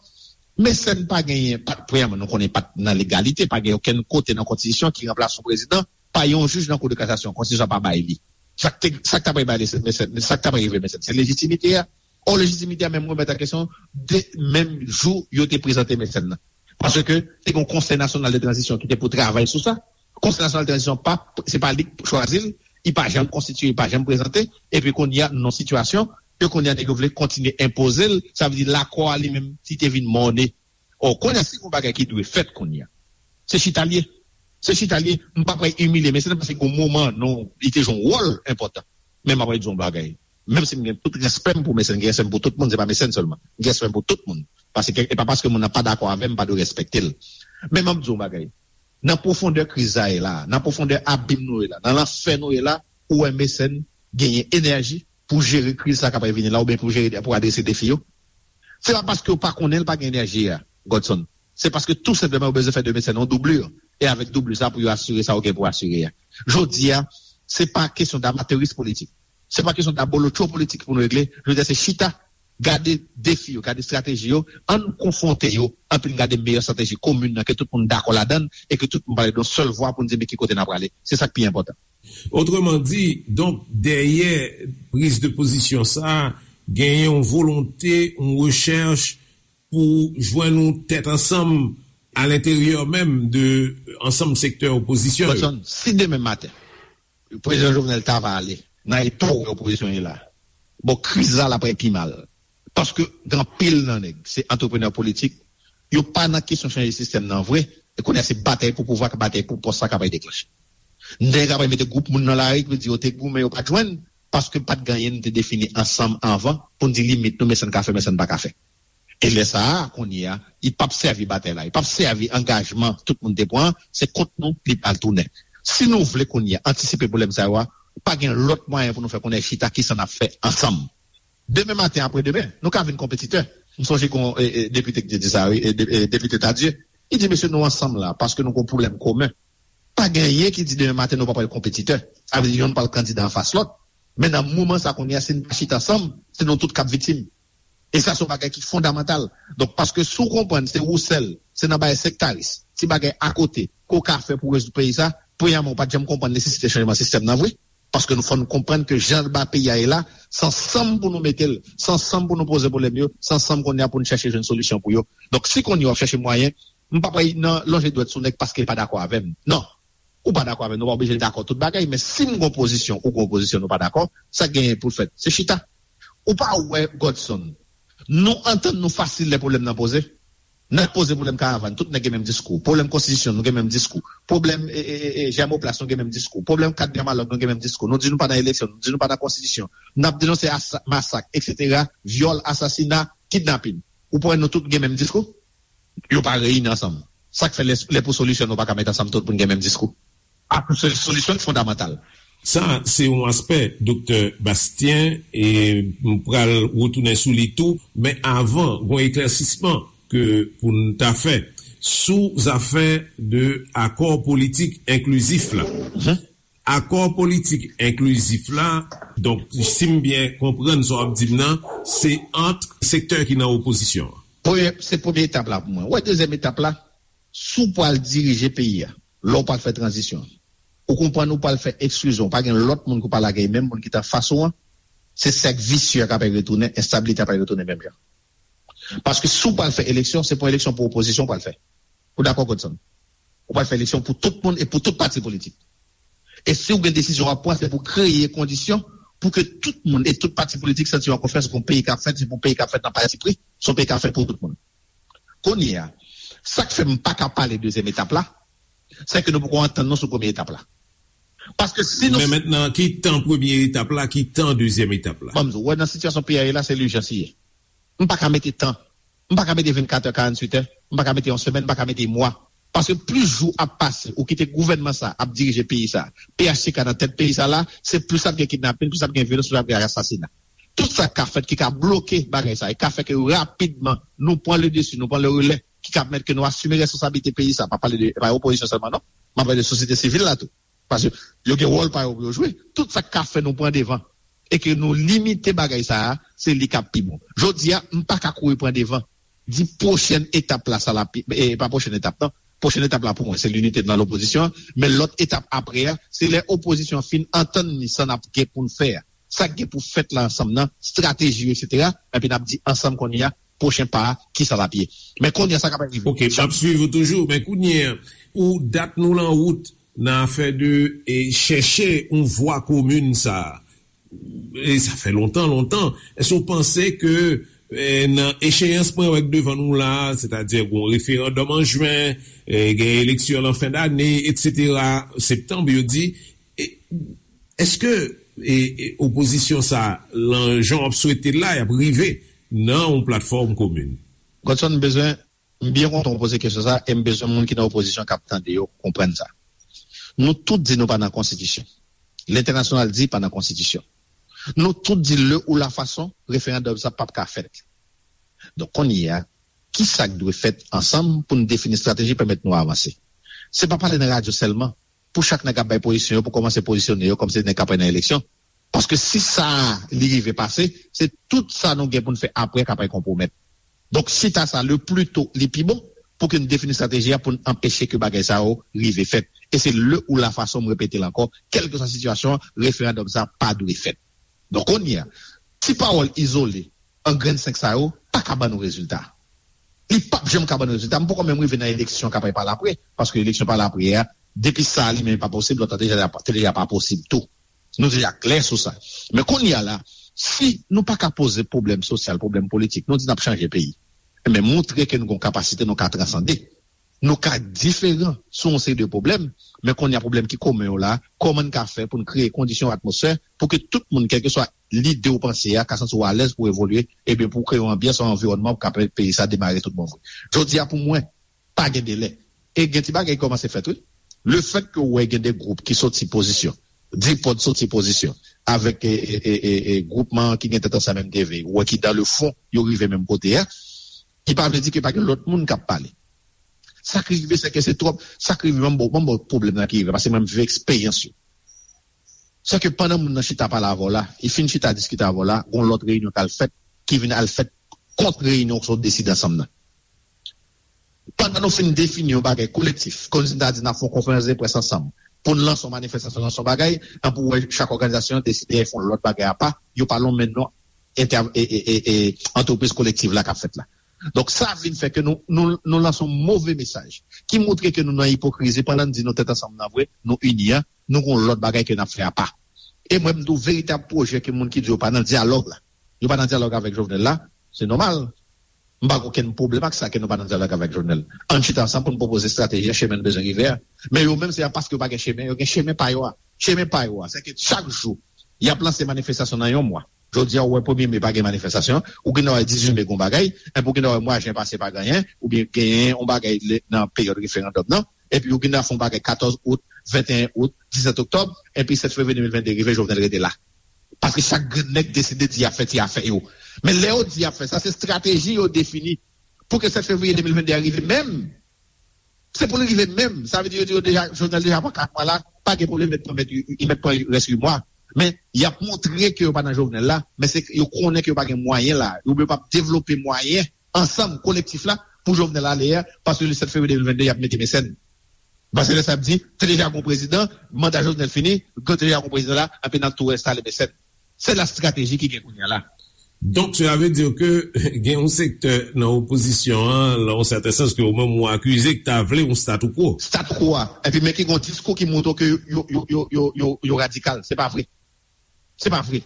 Mecène pa genyen, pa, premyèman, nou konnen pa t nan legalite, pa gen okenn kote nan konstitisyon ki ranplase yon prezidan pa yon jij nan Kou de Kasasyon. Konstitisyon an pa bay li. Sa k te, sa k t ap bay Mecène, sa k t ap rive Mecène, se lejitimite a. Ò, lejitimite a menm remèt an kesyon de menm jou yo te prezante Mecène nan. Paske te gen yon Konsèy Nasyonal de Tranzisyon ki te pou travay sou sa. Konsèy Nasyonal de Tranzisyon pa, se pa li k chwazi l, li pa janm konstitiye, li pa janm prezante, epi kounye a, nan sitiyasyon, ke kounye a nèg yo vle kontinye enpoze l, sa vle di lakò a li menm, li te vin mòne. Ò, kounye a, si gen yon bagay ki dwe fèt kounye a, se chita l ye. Se chita l ye, m pa pral imilye Mecène paske gen yon moman, non, li te jwe yon wòl enpòtan. Men m ap di yon bagay. Menm si m gen tout respè m pou Mecène, m gen respè m pou tout moun, se pa Mecène sèlman. M gen respè m pou tout moun. Paske, e pa paske moun nan pa dakò avè m, m pa dwe respekte l. Men m ap di yon bagay. Nan pwofondè kriz sa ye la, nan pwofondè abim nou ye la, nan lanfè nou ye la, ou wè Mecène genyen enèji pou jere kriz sa k ap vini la, oubyen pou jere, pou adrese defi yo. Se pa paske yo pa konnen l pa gen enèji a, Godson. Se paske tou senpleman yo bezwen fè de Mecène yon doubli. E avèk doubli sa pou yo asire sa yo gen pou asire a. Jodi a, se pa kesyon d'amateurisme politik. Se pa kesyon d'abolotcho politik pou nou regle. Jodi a, se chita, gade defi yo, gade estrateji yo, ann konfwonte yo, anpi n gade meyè estrateji komin nan ke tout moun dakò ladan l e ke tout moun pale d yon sèl vwa pou n di men ki kote n ap prale. Se sa k pi enpòtan. Otreman di, donk, dèyè priz de pozisyon sa a, genyen yon volonte, yon rechèch pou jwenn yon tèt ansanm alenteryè menm de ansanm sektè opozisyon yo. Godson, si demen maten, Prezidan Jovenel ta va ale nan eta w wè opozisyon ye la, bon, kriz la, l ap pi mal. Paske gen anpil nan nèg, se antreprenè politik, yo pa nan kesyon chanje sistèm nan vre, e kounye a se batay pou pouvwa, batay pou pòs la k ap deklanche. Nèg ap mete gwoup moun nan lari ki di yo te goumen, yo pa t jwenn, paske pa t gen anyen nou te defini ansanm anvan pou n di limit nou, men sa n ka fè, men sa n pa ka fè. E lè sa a, kounye a, li p ap sèvi batay la, li p ap sèvi angajman tout moun te pran, se kont nou li pral tounen. Si nou vle kounye a antisipe pwoblèm sa yo a, pa gen lòt mwayen pou nou fè konnen chita kisa n ap fè ansanm. Demen maten, apre demen, nou ka vin konpetitè. M sonje gen yon e, e, depite ki te di sa, wi, e, de- e, depite Tardieu. Li di, mesye, nou ansanm la, paske nou gen yon pwoblèm komen. Pa gen anyen ki di demen maten nou pa pral konpetitè. Sa vle di yonn pral kandida anfas lòt. Men nan moman sa kounye a, si n pa chita ansanm, se nou tout k ap viktim. E sa se yon bagay ki fondamantal. Donk, paske si w konprann se ou sèl, se nan bagay sektaris, ti bagay akote, ke w ka fè pou rezoud peyi sa, premyèman, ou pa t janm konprann nesesite chanjman sistèm nan vre. Paske nou fò n konprann ke jan ba peyi a ye la, se ansanm pou nou mete l, se ansanm pou nou poze pwoblèm yo, se ansanm kounye a pou n chèche jwenn solisyon pou yo. Donk, si kounye a w ap chèche mwayen, m p ap nan lonje dwèt sou nèg paske l pa dakò avè m. Non. Ou pa dakò avè m, nou pa oblije dakò tout bagay, men si m gen yon pozisyon, ou gen yon pozisyon, nou pa dakò, sa k genyen pou l fèt, se chita. Ou pa wè, Godson, nou antann nou fasil lè pwoblèm nan poze. N ap poze pwoblèm karavàn, tout nèg gen menm diskou. Pwoblèm konstitisyon, nou gen menm diskou. Pwoblèm e, e, e, e, Jèmoplas, nou gen menm diskou. Pwoblèm kat Dyamalòg, nou gen menm diskou. Nou di nou pa nan eleksyon, nou di nou pa nan konstitisyon. N ap denonse asa- masak, etsetera, vyòl, asasina, kidnapin. Ou pa wè nou tout gen menm diskou? Yo pa reyini ansanm. Sa k fè lè, lè pou solisyon, nou pa ka met ansanm tout pou n gen menm diskou. Ak se solisyon ki fondamantal. Sa, se yon aspè, Doktè Bastien, e m pral retounen sou li tou, men avan, gon eklèsisman ke pou n ta fè sou zafè de akò politik enklizif la. Akò politik enklizif la, donk, si m byen konprann sa w ap di m nan, se ant sektè ki nan opozisyon an. Premye, se premye etap la pou mwen. Ou wè, dezyèm etap la, si w pral dirije peyi a, lè w pral fè tranzisyon, ou konprann ou pral fè eksklizyon, pa gen lòt moun ki w pral lage, menm moun ki t anfas ou an, se sèk visye a k ap retounen, enstabilite a ap retounen menm jan. Paske si w pral fè eleksyon, se pa yon eleksyon pou opozisyon w pral fè. Ou dakò, Godson? Ou pral fè eleksyon pou tout moun e pou tout pati politik. E si w gen desizyon w ap pran, se pou kreye kondisyon pou ke tout moun e tout pati politik santi yo an konfyans ke yon peyi k ap fèt, se pou yon peyi k ap fèt nan pati pri, se yon peyi k ap fèt pou tout moun. Kounye a, sa k fè m pa ka pale dezyèm etap la, se ke nou poko antann nou sou premye etap la. Paske si nou Men mentnan, ki tan premye etap la, ki tan dezyèm etap la? Ban m di w, wè, nan sitiyasyon peyi a ye la, se lijans li ye. M pa ka mete tan. M pa ka mete vennkat è, karantuit è. M pa ka mete yon semèn, m pa ka mete mwa. Paske plis jou ap pase, ou kite gouvènman sa ap dirije peyi sa, P H T K nan tèt peyi sa la, se plis ap gen kidnapin, plis ap gen vyolans, plis ap gen asasina. Tout sa k ka fèt ki ka bloke bagay sa, e ka fè ke rapidman nou pran le desi, nou pran le relè, ki ka pèmèt ke nou asime responsablite peyi sa. M pa pale de, pa opozisyon sèlman, non. M ap pale de sosyete sivil la tou. Paske yo gen wòl pa yo pou yo jwe. Tout sa k ka fè nou pran devan e ke nou limite bagay sa a, se li k ap pi bon. Jodi a, m pa ka kouri pran devan. Di pwochèn etap la, sa l ap, e pa pwochèn etap, non. Pwochèn etap la pou mwen, se linite nan lopozisyon an. Men lòt etap apre a, se lè opozisyon an fin antann li sa n ap gen pou n fè a. Sa k gen pou fèt la ansanm nan, estrateji yo, etsetera. Epi n ap di ansanm kounye a, pwochen pa a, kisa l ap ye. Men kounye a, sa k ap rive. Ok, m ap swiv ou toujou, men kounye a, pou dat nou lan wout nan afè de, e, chèche yon vwa komin sa a. E sa fè lontan, lontan. Èske w panse ke, e, nan echeyans mwen wè k devan nou la, sètadi gon referandòm an jen, e, gen eleksyon lan fen dane, etsetera, septanm, yo di, e, èske, e, e, opozisyon sa, lan jan w ap swete l la, y ap rive nan yon platfòm komin? Godson, m bezwen, m byen kontan w poze kesyon sa, e m bezwen moun ki nan opozisyon k ap tande yo konprann sa. Nou tout di nou pa nan konstitisyon. Lentènasyonal di pa nan konstitisyon. Nou tout di le ou la fason, referandòm sa p ap ka fèt. Donk, kounye a, kisa k dwe fèt ansanm pou n defini estrateji pèmèt nou avanse? Se pa pale nan radyo sèlman. Pou chak nèg ap bay pozisyon yo, pou kòmanse pozisyone yo kòmsi nèg k ap pran nan eleksyon. Paske si sa a, li rive pase, se tout sa nou gen pou n fè apre k ap konpwomèt. Donk, chita sa, le pli to, li pi bon, pou ke n defini estrateji a pou n anpeche ke bagay sa yo rive fèt. E se le ou la fason, m repete l ankò, kèlkeswa sitiyasyon an, referandòm sa pa dwe fèt. Donk, kounye a, ti pawòl izole, an grenn senk sa yo, pa ka ban nou rezilta. Li p ap janm ka ban nou rezilta. M poko menm rive nan eleksyon k ap pale apre, paske eleksyon pale apre a, depi sa li menm pa posib, lòt la te deja, te deja pa posib tou. Nou deja klè sou sa. Men kounye a la, si nou pa ka poze pwoblèm sosyal, pwoblèm politik, nou di n ap chanje peyi. Men montre ke nou gen yon kapasite, nou ka transande. Nou ka diferan sou yon seri de pwoblèm, men kounye a pwoblèm ki komen yo la, kòman n ka fè pou n kreye kondisyon, atmosfè, pou ke tout moun, kèlkeswa lide ou panse a, ka santi w alèz pou evolye, ebyen pou kreye yon anbyans, yon anviwònman pou ka pèmèt peyi sa demare tout bon vre. Jodi a pou mwen, pa gen delè. E gen ti bagay ki kòmanse fèt, wi. Lefèt ke w wè gen de gwoup ki soti pozisyon, Dipòd soti pozisyon, avèk, e, e, e, e, e, gwoupman ki gen tèt ansanm M D V, ou wè ki dan le fon, yo rive menm kote a, ki pa vle di ke pa gen lòt moun k ap pale. Sa k rive, se ke se twòp, sa k rive, ban m ba w, ban m ba w pwoblèm nan ki rive, paske mwen m viv eksperyans yo. Se ke pandan moun nan chita pale avè w la, li fin chita diskite avè w la, gon lòt reyinyon k al fèt, ki vin al fèt kont reyinyon sa w deside ansanm nan. Pandan nou fin defini yon bagay kolektif, kòmsi n ta di n ap fè yon konferans de près ansanm, pou n lanse yon manifestasyon, lanse yon bagay, anpi w wè chak òganizasyon deside fè yon lòt bagay apa, yo pa lonmen non entè-, e, e, e, e, antrepriz kolektiv la k ap fèt la. Donk, sa vin fè ke nou, nou, nou lanse yon move mesaj ki montre ke nou nan ipokrizi pandan n di nou tèt ansanm nan vre, nou ini an, nou gon lòt bagay ke n ap fè apa. E mwen, m di w, veritab pwojè ke moun ki di yo pa nan dyalòg la, yo pa nan dyalòg avèk Jovenel la, se nòmal. M pa gen okenn pwoblèm ak sa ke nou pa nan dyalòg avèk Jovenel. Ann chita ansanm pou n pwopoze estrateji a, chemen n bezwen rive a. Men yo menm, se pa paske yo pa gen chemen, yo gen chemen pa yo a. Chemen pa yo a, se ke chak jou, y ap lanse manifestasyon nan yon mwa. Jodi a, ou wè premye me pa gen manifestasyon, ou gen dwa wè dizuit me gen yon bagay, epi ou gen dwa wè mwa jen pase pa gen anyen, oubyen genyen yon bagay nan peryòd referandòm nan, epi ou gen dwa fè yon bagay katòz out, venteyen out, disèt oktòb, epi sèt fevriye de mil vennde rive, Jovenel rete la. Paske chak grenn nèg deside di y ap fè ti afè yo. Men lè yo di y ap fè sa, se estrateji yo defini pou ke sèt fevriye de mil vennde a rive menm. Se pou l rive menm. Sa vle di yo di yo deja, Jovenel deja pran kat mwa la, pa gen pwoblèm, mèt pran, mèt, mèt pran rès uit mwa. Men, y ap montre ke yo pa nan Jovenel la, men se yo konnen ke yo pa gen mwayen la. Yo p ap devlope mwayen ansanm, kolektif la, pou Jovenel ale a, paske le sèt fevriye de mil vennde, y ap mete Mecène. Paske lè sa ap di, te deja gon prezidan, manda Jovenel fini, te deja gon prezidan la, epi n ap tou enstale Mecène. Se la estrateji ki gen kounye a la. Donk, sa vle di ke gen yon sektè nan opozisyon an, nan yon sèten sans, ke ou menm ou akize, ki ta vle yon statu quo. Statu quo a. Epi men ki gen yon diskou ki montre ke yo, yo, yo, yo, yo, yo, yo radikal. Se pa vre. Se pa vre.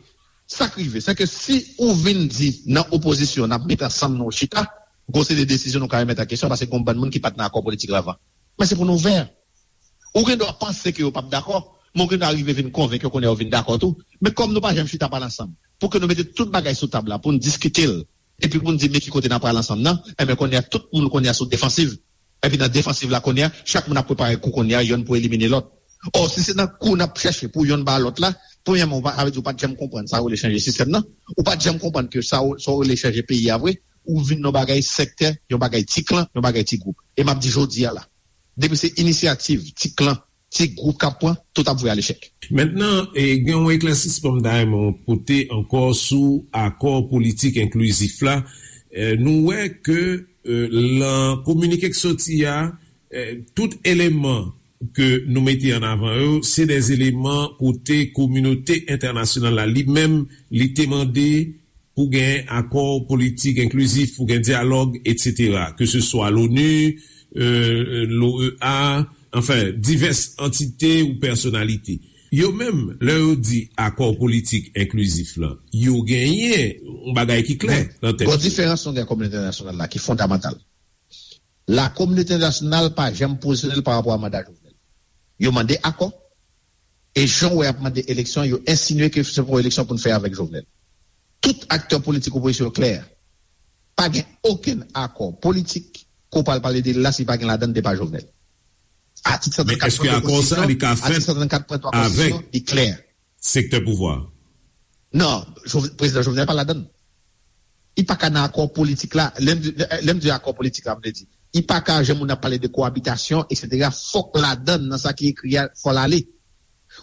Sa k rive, se ke si ou vin di nan opozisyon, n ap met ansanm nou chita, gon seri de desizyon nou ka remèt an kesyon, paske gon bann moun ki pa t nan akò politik la avan. Men se pou nou ouvè. Ou gen dwa panse ke yo p ap dakò, men ou gen dwa rive vin konvenk yo kounye a yo vin dakò tou. Men kòm nou pa janm chita pale ansanm, pou ke nou mete tout bagay sou tab la, pou n diskite l, epi pou n di men ki kote n ap pral ansanm nan, enben kounye a tout moun kounye a sou defansiv. Epi nan defansiv la kounye a, chak moun ap prepare kou kounye a, yonn pou elimine lòt. Ò, si se nan kou n ap chèche pou yonn ba lòt la, premyèman, ou pa, sa vle di ou pa t janm konprann sa yo rele chanje sistèm nan, ou pa t janm konprann ke sa yo, sa yo rele chanje peyi a vre, ou vin nan bagay sektè, yon bagay ti klan, yon bagay ti gwoup. E m ap di jodi a la, depi se inisyativ, ti klan, ti gwoup k ap pran, tout ap voye al echèk. Mentnan, e, gen yon eklèsisman m ta renmen w pote ankò sou akò politik enklizif la. E, nou wè ke, e, lan kominike k soti a, e, tout eleman ke nou mete an avan yo, se de eleman kote kominote entènasyonal la li menm, li te mande pou gen akò politik enklizif, pou gen dyalòg, etsetera. Ke se swa l'ONU, e, l'OEA, anfen, divès antite ou pèsonalite. Yo menm, lè yo di akò politik enklizif lan, yo genyen yon bagay ki klè nan tèt yo. Gon diferans nou gen ak kominote entènasyonal la ki fondamantal. La kominote entènasyonal pa janm pozisyone l pa rapò a manda Jovenel. Yo mande akò, e jan w wè y ap mande eleksyon, yo ensinye ke se pou eleksyon pou n fè avèk Jovenel. Tout aktè politik opozisyon yo klè. Pa gen okenn akò politik ke w pral pale de l la si pa gen ladan l de pa Jovenel. Atik Men èske akò sa a li ka fèt avèk sektè pouvwa? Non, Jov- prezidan Jovenel pa ladan l. Li pa ka nan akò politik la. Lè m di, lè m di akò politik la, m vle di, li pa ka, jan moun ap pale de koabitasyon, etsetera, fòk ladan l nan sa ki ekri a, fò l ale.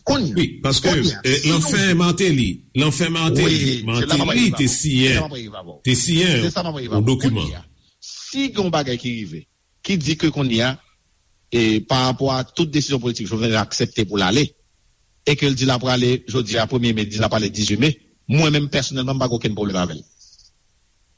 Kounye a, Wi, paske kounye a, eh, si nou lanfen Martelly, lanfen Martelly, Wi, se la m ap Martelly rive te avè w. Se siyen, la m ap rive avè w. Te siyen Se sa m ap rive yon avè w. dokiman. Kounye a, si gen yon bagay ki rive, ki di ke kounye a, e, pa rapò a tout desizyon politik Jovenel aksepte pou l ale, e ke l di l ap prale jodi a premye me, di l ap prale dizuit me, mwen menm pèsonèlman, m pa gen okenn pwoblèm avè l.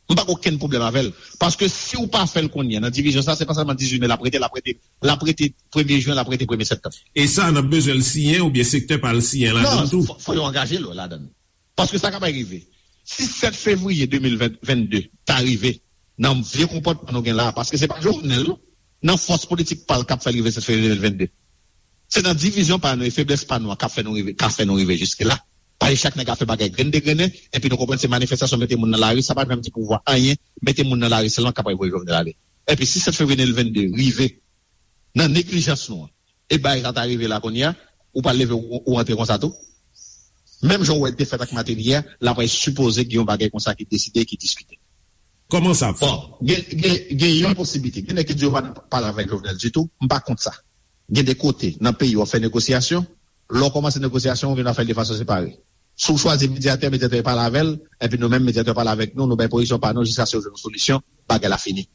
M pa gen okenn pwoblèm avè l. Paske si w pa fè l kounye a, nan divizyon sa, se pa sèlman dizuit me l ap rete, l ap rete, l ap rete premye jen, l ap rete premye septanm. E sa, n ap bezwen l siyen oubyen sektè pa l siyen ladan l tou? Non, fò, fò yo angaje l ladan l. Paske sa k ap rive, si sèt fevriye de mil vennde ta rive, nan vye konpòtman nou gen la a, paske se pa Jovenel, non, nan fòs politik pa l k ap fè l rive sèt fevriye de mil vennde. Se nan divizyon pa nou e feblès pa nou an k ap fè nou rive, k ap fè nou rive jiske la. Paske chak nèg ap fè bagay grenn de grennen, epi nou konprann se manifestasyon mete moun nan lari, sa pa janm di pouvwa anyen, mete moun nan lari sèlman k ap voye Jovenel ale. Epi si sèt fevriye de mil vennde rive, nan neglijans nou an, e bagay sa ta rive la kounye a, ou pral leve ou, ou rantre konsa tou? Menm jan w wè defèt ak Martelly a, l ap sipoze gen yon bagay konsa ki deside, ki diskite. Kòman sa ap fèt? Bon, gen, gen, gen yon posiblite. Gen nèg ki di yo pa nan pale avèk Jovenel ditou, m pa kont sa. Gen de kote nan peyi w ap fè negosyasyon, lè w kòmanse negosyasyon, ou vin ap fè l de fason separe. Si w chwazi medyatè, medyatè pale avè l, epi nou menm, medyatè pale avèk nou, nou bay pozisyon pa nou jiskaske yo jwenn yon solisyon, bagay la fini.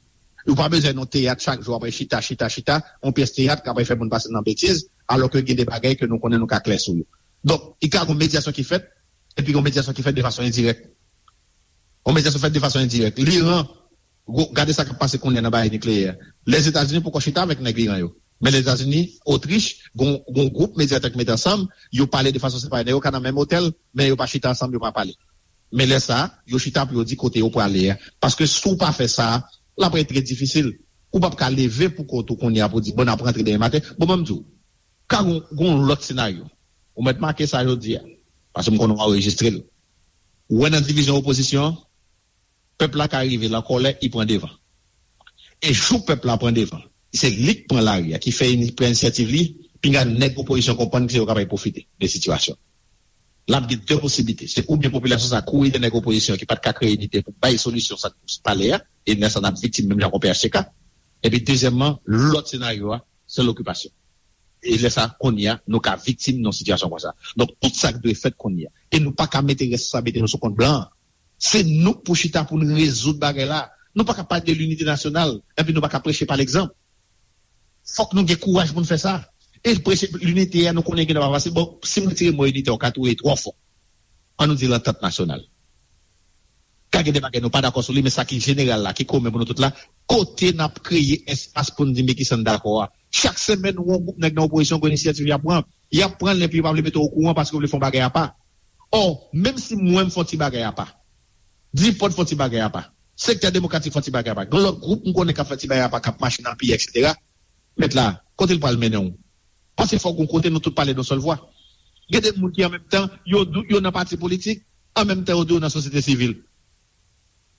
Ou pa bezwen yon teyat chak jou apre chita, chita, chita, yon pyès teyat k apre fè moun pase nan betiz, alò ke gen de bagay ke nou konnen nou ka klè sou yo. Donk, i ka gon medyasyon ki fèt, epi gon medyasyon ki fèt de fason endirèk. Yon medyasyon fèt de fason endirèk. Liran, gade sa k ap pase kounye a nan bagay nikleyè. Lèzetazini poko chita avèk nèg Liran yo. Men Lèzetazini, Otrich, gon, gon gwoup medyatè k mete ansanm, yo pale de fason separe. Nèg yo ka nan menm otèl, men yo pa chita ansanm, yo pa pale. Men lè sa a, yo chita pou yo di kote yo prale a. Paske si w pa fè sa a, l ap ret trè difisil. Ou p ap ka leve pou kont ou kounye a pou di, bon, n ap rantre demen maten. Bon, ban m di w, ka gon, gon lòt senaryo. Ou mèt make sa jodi a, paske m konnen w anrejistre l. Ou wè nan divizyon opozisyon an, pèp la ka rive l an kòlè, li pran devan. E jou pèp la pran devan, se li k pran lari a, ki fè ini-, pran inisyativ li, pinga nèg opozisyon konprann ke yo kapab pwofite de sitiyasyon. L ap gen de posiblite. Se oubyen popilasyon sa kouri dèyè nèg opozisyon ki pa t ka kreye inite pou bay solisyon sa k pale a, e lè sa n ap viktim menm jan kon P H T K. Epi dezyèmman, lòt senaryo a, se lokipasyon. E lè sa, kounye a, nou ka viktim nan sitiyasyon konsa. Donk, tout sa k dwe fèt kounye a. E nou pa ka mete responsablite nou sou kont blan an. Se nou k pou chita pou n rezoud bagay la. Nou pa ka pale de linite nasyonal, epi nou pa ka preche pa legzanp. Fòk nou gen kouraj pou n fè sa. E preche linite a, nou konnen gen nan pa fasil. Bon, si m retire mo inite, w ka twouve twò fò. Ann nou di lantant nasyonal. Ka gen de bagay nou pa dakò sou li, men sa ki jeneral la, ki komen pou nou tout la, kote n ap kreye espas pou n di men kisa n dakò a. Chak semèn, ou wè yon gwoup nèg nan opozisyon gen inisyativ y ap pran. Y ap pran l, epi yo pa vle mete w okouran paske yo vle fè yon bagay apa. Ò, menm si mwen m fè yon ti bagay apa, Dipòt fè yon ti bagay apa, Sektè Demokratik fè yon ti bagay apa, gen lòt gwoup m konnen k ap fè ti bagay apa, k ap mache nan peyi, etsetera. Mèt la, kote l pral mennen w? Paske fòk gon kote nou tout pale yon sèl vwa. Gen de moun ki an menm tan, yo di w yo nan pati politik, an menm tan yo di w yo nan sosyete sivil.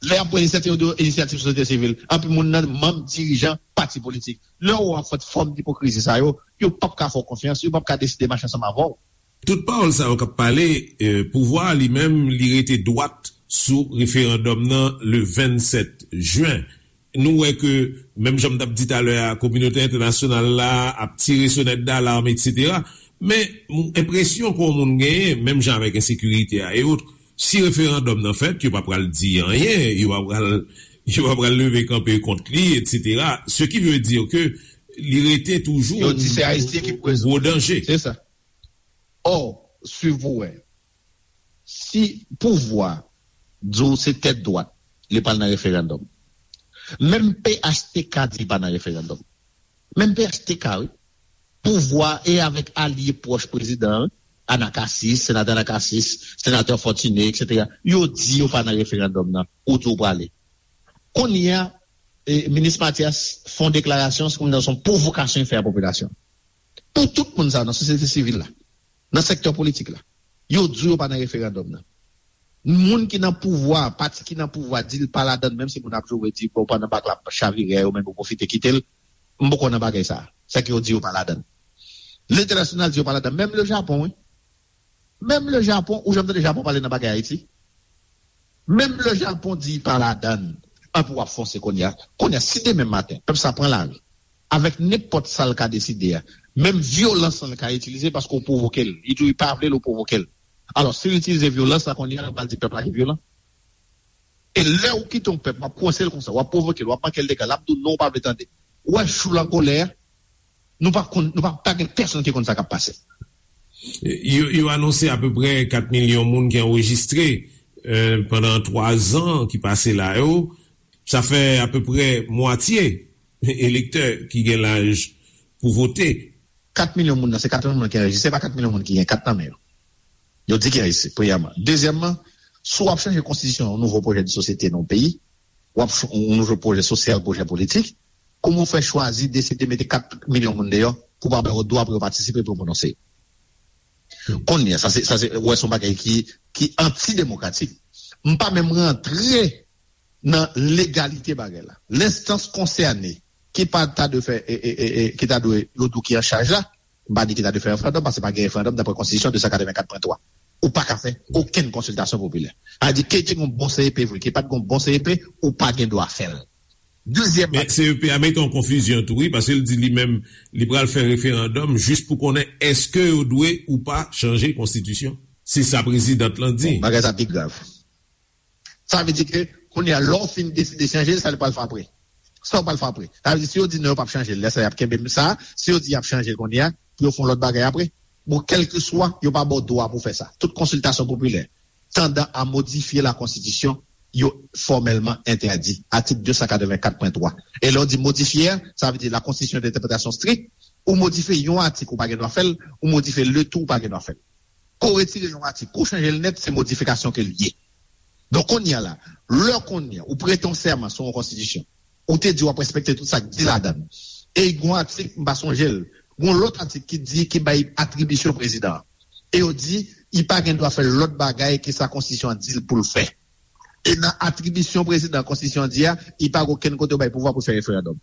Lè y ap pran inisyativ, yo di w inisyativ sosyete sivil. Anpil moun nan manm dirijan pati politik. Lè w ap fè fòm dipokrizi sa yo, yo p ap ka fè w konfyans, yo p ap ka deside mache ansanm avè w. Tout pawòl sa yo k ap pale, eh, pouvwa a li menm, li rete dwat sou referandòm nan le vennsèt jen. Nou wè ke, menm jan m t ap di talè a, kominote entènasyonal la ap tire sonèt dalam, etsetera. Men, m-, enpresyon ke yon moun genyen, menm jan avèk ensekirite a e otre, si referandòm nan fèt, yo pa pral di anyen, yo pa pral, yo pa pral leve kanpe kont li, etsetera. Ce qui veut dire que li rete toujou Yo di se Ayisyen ki yon gwo danje. Se sa. Ò, swiv pou wè. Si pouvwa di w se tèt dwat, li pral nan referandòm. Menm P H T K di li pa nan referandòm. Menm P H T K, wi. Pouvwa e avèk alye pwòch prezidan an, Anacasis, senatè Anacasis, senatè Fortuné, etsetera, yo di yo pa nan referandòm nan, ou di w prale. Kounye a, eh, minis Mathias fè yon deklarasyon, se kòmsi se yon pwovokasyon li fè a popilasyon. Pou tout moun sa yo nan sosyete sivil la, nan sektè politik la, yo di w yo pa nan referandòm nan. Moun ki nan pouvwa, pati ki nan pouvwa di l pa ladan l, menm si moun ap joure di, bon, pandan bak la ap chavire, yo menm yo pwofite kite l, m poko nan bagay sa. Sa ke yo di yo pa ladan l. Lentènasyonal di yo pa ladan l. Menm le Japon, wi. Menm le Japon, ou janm tande Japon pale nan bagay Ayiti? Menm le Japon di pa ladan l. Anpi w ap fonse kounye a. Kounye a, si demen maten, pèp sa pran lari, avèk nenpòt sa l ka deside a, menm vyolans lan l ka itilize paske w pwovoke l. Li di w li pa vle l, ou pwovoke l. Alò, si l itilize vyolans la kounye a, l pral di pèp la ki vyolan. E lè w kite yon pèp, w ap kwense l konsa, w ap pwovoke l, w ap manke l dega, l ap di w non, w pa vle tande. Ou wè jou l an kolè a, nou pa konn, nou pa, pa gen pèsonn ki konn sa k ap pase. Yo, yo anonse apeprè kat milyon moun ki anrejistre, eh, pandan twa zan ki pase la yo. Sa fè apeprè mwatye elektè ki gen laj pou vote. Kat milyon moun nan, se kat milyon moun ki anrejistre, se pa kat milyon moun ki gen kat nan men yo. Yo di ki anrejistre, premyèman. Dezyèmman, si w ap chanje konstitisyon, yon nouvo pwojè de sosyete nan yon peyi, w ap ch-, yon nouvo pwojè sosyal, pwojè politik, kòman w fè chwazi deside mete kat milyon moun deyò pou pa ba yo dwa pou yo patisipe, pou yo pwononse? Kounye a, sa se, sa se, wè, se yon bagay ki, ki antidemokratik. M pa menm rantre nan legalite bagay la. Lenstans konsène ki pa ta dwe fè, e, e, e, e, ki ta dwe, yo di w ki an chaj la, m pa di ki ta dwe fè referandòm, paske pa gen referandòm daprè konstitisyon de san katrevenkat pwen twa. Ou pa ka fè okenn konsiltasyon popilè. Sa vle di, ke te gen bon C E P vre, ke pa t gen bon C E P, ou pa gen dwa fè l. Dezyèm Men bagay, C E P a mete an konfizyon tou, wi, paske l di li menm, li pral fè referandòm jis pou konnen èske yo dwe ou pa chanje konstitisyon. Se sa prezidant lan di. Bon, bagay sa pi grav. Sa vle di ke, kounye a, lè w fin deside chanje l, sa l pral fè apre? Sa w pral fè apre? Sa vle di, si yo di non, yo p ap chanje l, lè sa y ap kenbe m sa, si yo di y ap chanje l kounye a, pou yo fè yon lòt bagay apre? Bon, kèlkeswa, yo pa ba w dwa pou w fè sa. Tout konsiltasyon popilè, tandan a modifye la konstitisyon, yo fòmèlman entèdi. Atik de san katrevenkat pwen twa. E lè w di modifye a, sa vle di la konstitisyon de entèpretasyon strik, ou modifye yon atik, ou pa gen dwa fè l, ou modifye le tou, ou pa gen dwa fè l. Ke w retire yon atik, ke w chanje l nèt, se modifikasyon ke l ye. Donk, kounye a la, lè kounye a, ou prete yon sèman sou yon konstitisyon, ou te di w ap respekte tout sa k di ladan l. E gen yon atik, m pa sonje l, gen yon lòt atik ki di, ki bay atribisyon prezidan an. E yo di, li pa gen dwa fè lòt bagay ke sa konstitisyon an di l pou l fè. E nan atribisyon prezidan konstitisyon an di a, li pa gen okenn kote yo bay pouvwa pou l fè referandòm.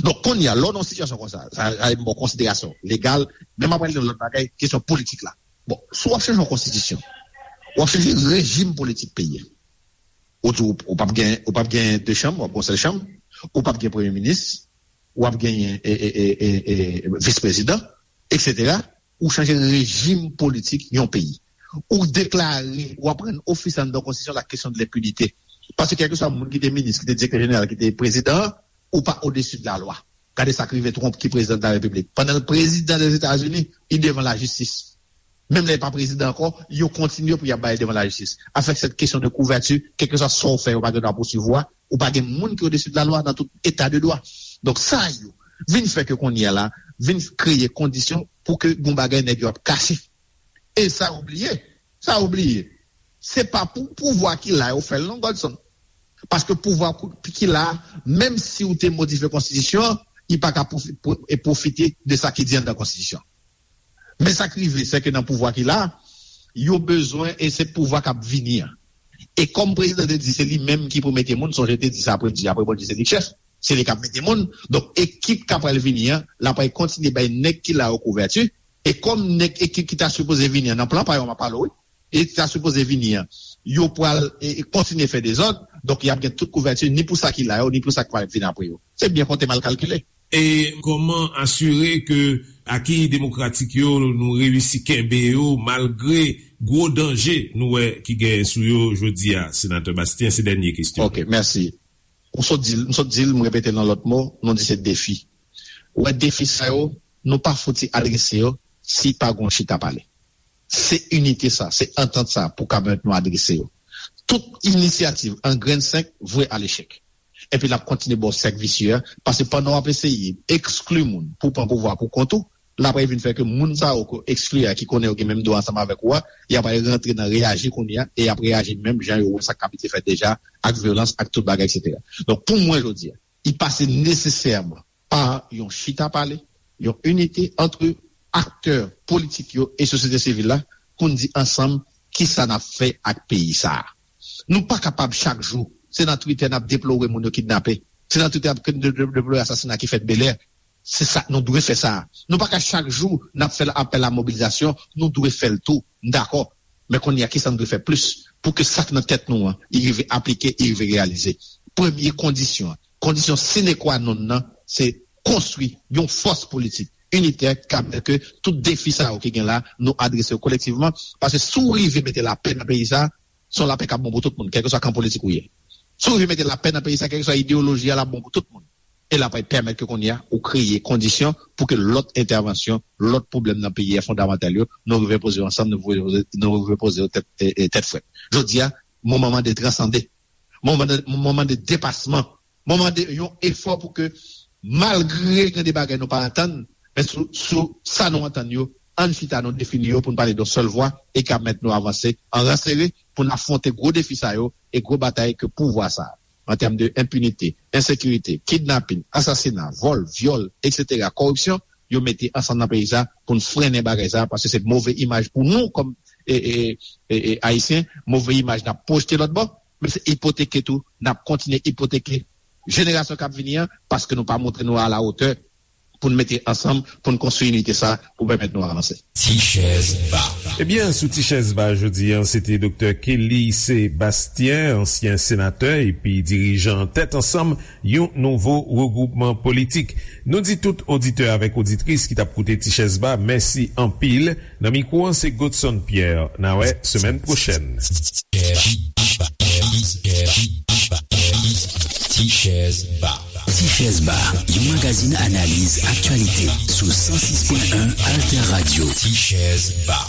Donk, kounye a, lè w nan yon sitiyasyon konsa, sa, sa, bon, konsiderasyon legal, men m ap pale de lòt bagay, kesyon politik la. Bon, si w ap chanje yon konstitisyon, w ap chanje rejim politik peyi a. Ou di w, ou p ap gen, ou p ap gen de chanm, w ap gen yon sèl chanm, ou p ap gen premye minis, w ap genyen, e, e, e, e, e, vis prezidan, et cetera. Ou chanje rejim politik yon peyi. Ou deklare, ou ap rann ofisye anndan konstitisyon la kesyon de lenpinite. Paske kèlkeswa moun ki te minis, ki te direktè jeneral, ki te prezidan, ou pa odesi de la lwa. Gade sa k rive Trump ki prezidan de la repiblik. Pandan l prezidan Dèzetazini, li devan lajistis. Menm lè li pa prezidan ankò, yo kontinye pou y ap ba l devan lajistis. Avèk sèt kesyon de kouvèti, kèlkeswa sa w fè, yo pa gen dwa pousuiv ou a, ou pa gen moun ki odesi de la lwa nan tout eta de dwa. Donk sa yo vin fè ke kounye a la, vin kreye kondisyon pou ke gon bagay nèg yo ap kache. E sa yo bliye, sa yo bliye, se pa pou pouvwa ki la yo fè l non, Godson. Paske pouvwa ki la, menm si w te modifye konstitisyon an, li pa ka pwofi- pwo- e pwofite de sa ki di anndan konstitisyon an. Men sa k rive, se ke nan pouvwa ki la, yo bezwen, e se pouvwa k ap vini an. E kòm prezidan te di, se li menm ki pou mete moun, sonje te di sa apre, di apre Bondye se li k chèf, se li k ap mete moun. Donk, ekip k ap pral vini an, l ap pral kontinye bay nèg ki la yo kouvèti. E kòm nèg ekip ki ta sipoze vini an, nan plan pa yo, m ap pale w, wi, e ki ta sipoze vini an, yo pral e, e kontinye fè dezòd, donk y ap gen tout kouvèti, ni pou sa ki la yo, ni pou sa k pral vin apre yo. Se byen konte, mal kalkile. E kòman asire ke aki demokratik yo, nou reyisi kenbe yo malgre gwo danje nou wè ki genyen sou yo jodi a, Senatè Bastien? Se dènye kesyon. Ok, mèsi. M sot di l, m sot di l, m repete l nan lòt mo, nou di se defi. Ou wè, defi sa yo, nou pa fouti adrese yo si pa gon chita pale. Se inite sa, se antant sa pou ka pèmèt nou adrese yo. Tout inisyativ an grenn senk vwe a lechèk. Epi l ap kontinye ba w sèk visye a, paske pandan w ap eseye ekskli moun pou w pran pouvwa pou kont ou, l ap vin fè ke moun sa yo ke w ekskli a, ki konnen yo gen menm dwa ansanm avèk ou a, y ap al rantre nan reyaji kounye a, e y ap reyaji menm jan yo wè sa k abitye fèt deja, ak vyolans, ak tout bagay, et cetera. Donk, pou mwen, jodi a, li pase nesesèman pa yon chita pale, yon inite ant aktè politik yo e sosyete sivil la pou n di ansanm kisa n ap fè ak peyi sa a. Nou pa kapab chak jou, se nan Twitter n ap deplore moun yo kidnape, se nan Twitter n ap de- de- deplore asasina ki fèt Bèlè. Se sa, nou dwe fè sa. Nou pa ka chak jou n ap fè apèl a mobilizasyon, nou dwe fè l tou, m dakò. Men kounye a, kisa n dwe fè plis pou ke sa k nan tèt nou an, li rive aplike, li rive reyalize? Premye kondisyon an, kondisyon sine qua non nan, se konstwi yon fòs politik initè ki ka pèmèt ke tout defi sa yo ki gen la, nou adrese yo kolektivman. Paske si w rive mete lapè nan peyi sa, se yon lapè k ap bon pou tout moun, kèlkeswa kan politik ou ye. Si w rive mete lapè nan peyi sa, kèlkeswa ideyoloji a, l ap bon pou tout moun. E l ap pèmèt ke kounye a, ou kreye kondisyon pou ke lòt entèvansyon, lòt pwoblèm nan peyi a fondamantal yo, nou rive poze yo ansanm, nou rive poze, nou rive poze yo tèt, e, e, tèt frèt. Jodi a, moman mande transande. Moman mande, moman mande depasman. Moman mande yon efò pou ke, malgre gen de bagay nou pa antann, men sou, sou sa nou antann yo, ann chita, nou defini yo pou n pale yon sèl vwa e ka pèmèt nou avanse an ran sere pou n afwonte gwo defi sa yo e gwo batay ke pouvwa sa a, an tèm de enpinite, ensekirite, kidnapin, asasina, vòl, vyòl, et cetera, kòripsyon, yo mete ansanm nan peyi sa pou n frennen bagay sa, paske se move imaj pou nou kòm e, e, e, e, Ayisyen, move imaj n ap pwojte lòt bò, men se ipoteke tou, n ap kontinye ipoteke jenerasyon k ap vini an, paske nou pa montre nou a la wotè pou n mete ansanm, pou n konstwi inite sa pou pèmèt nou avanse. Ti chèz ba. Ebyen, sou Ti chèz ba jodi an, se te Doktè Kelly Sébastien, ansyen senatè epi dirijan Tèt Ansanm, yon nouvo regwoupman politik. Nou di tout oditè avèk oditris ki t ap koute Ti chèz ba, mèsi anpil. Nan mikwo an, se Godson Pierre. N a wè semèn pwochèn. Ti chèz ba. Ti chèz ba, yon magazin analiz aktyalite sou san sis pwen en Alter Radio. Ti chèz ba.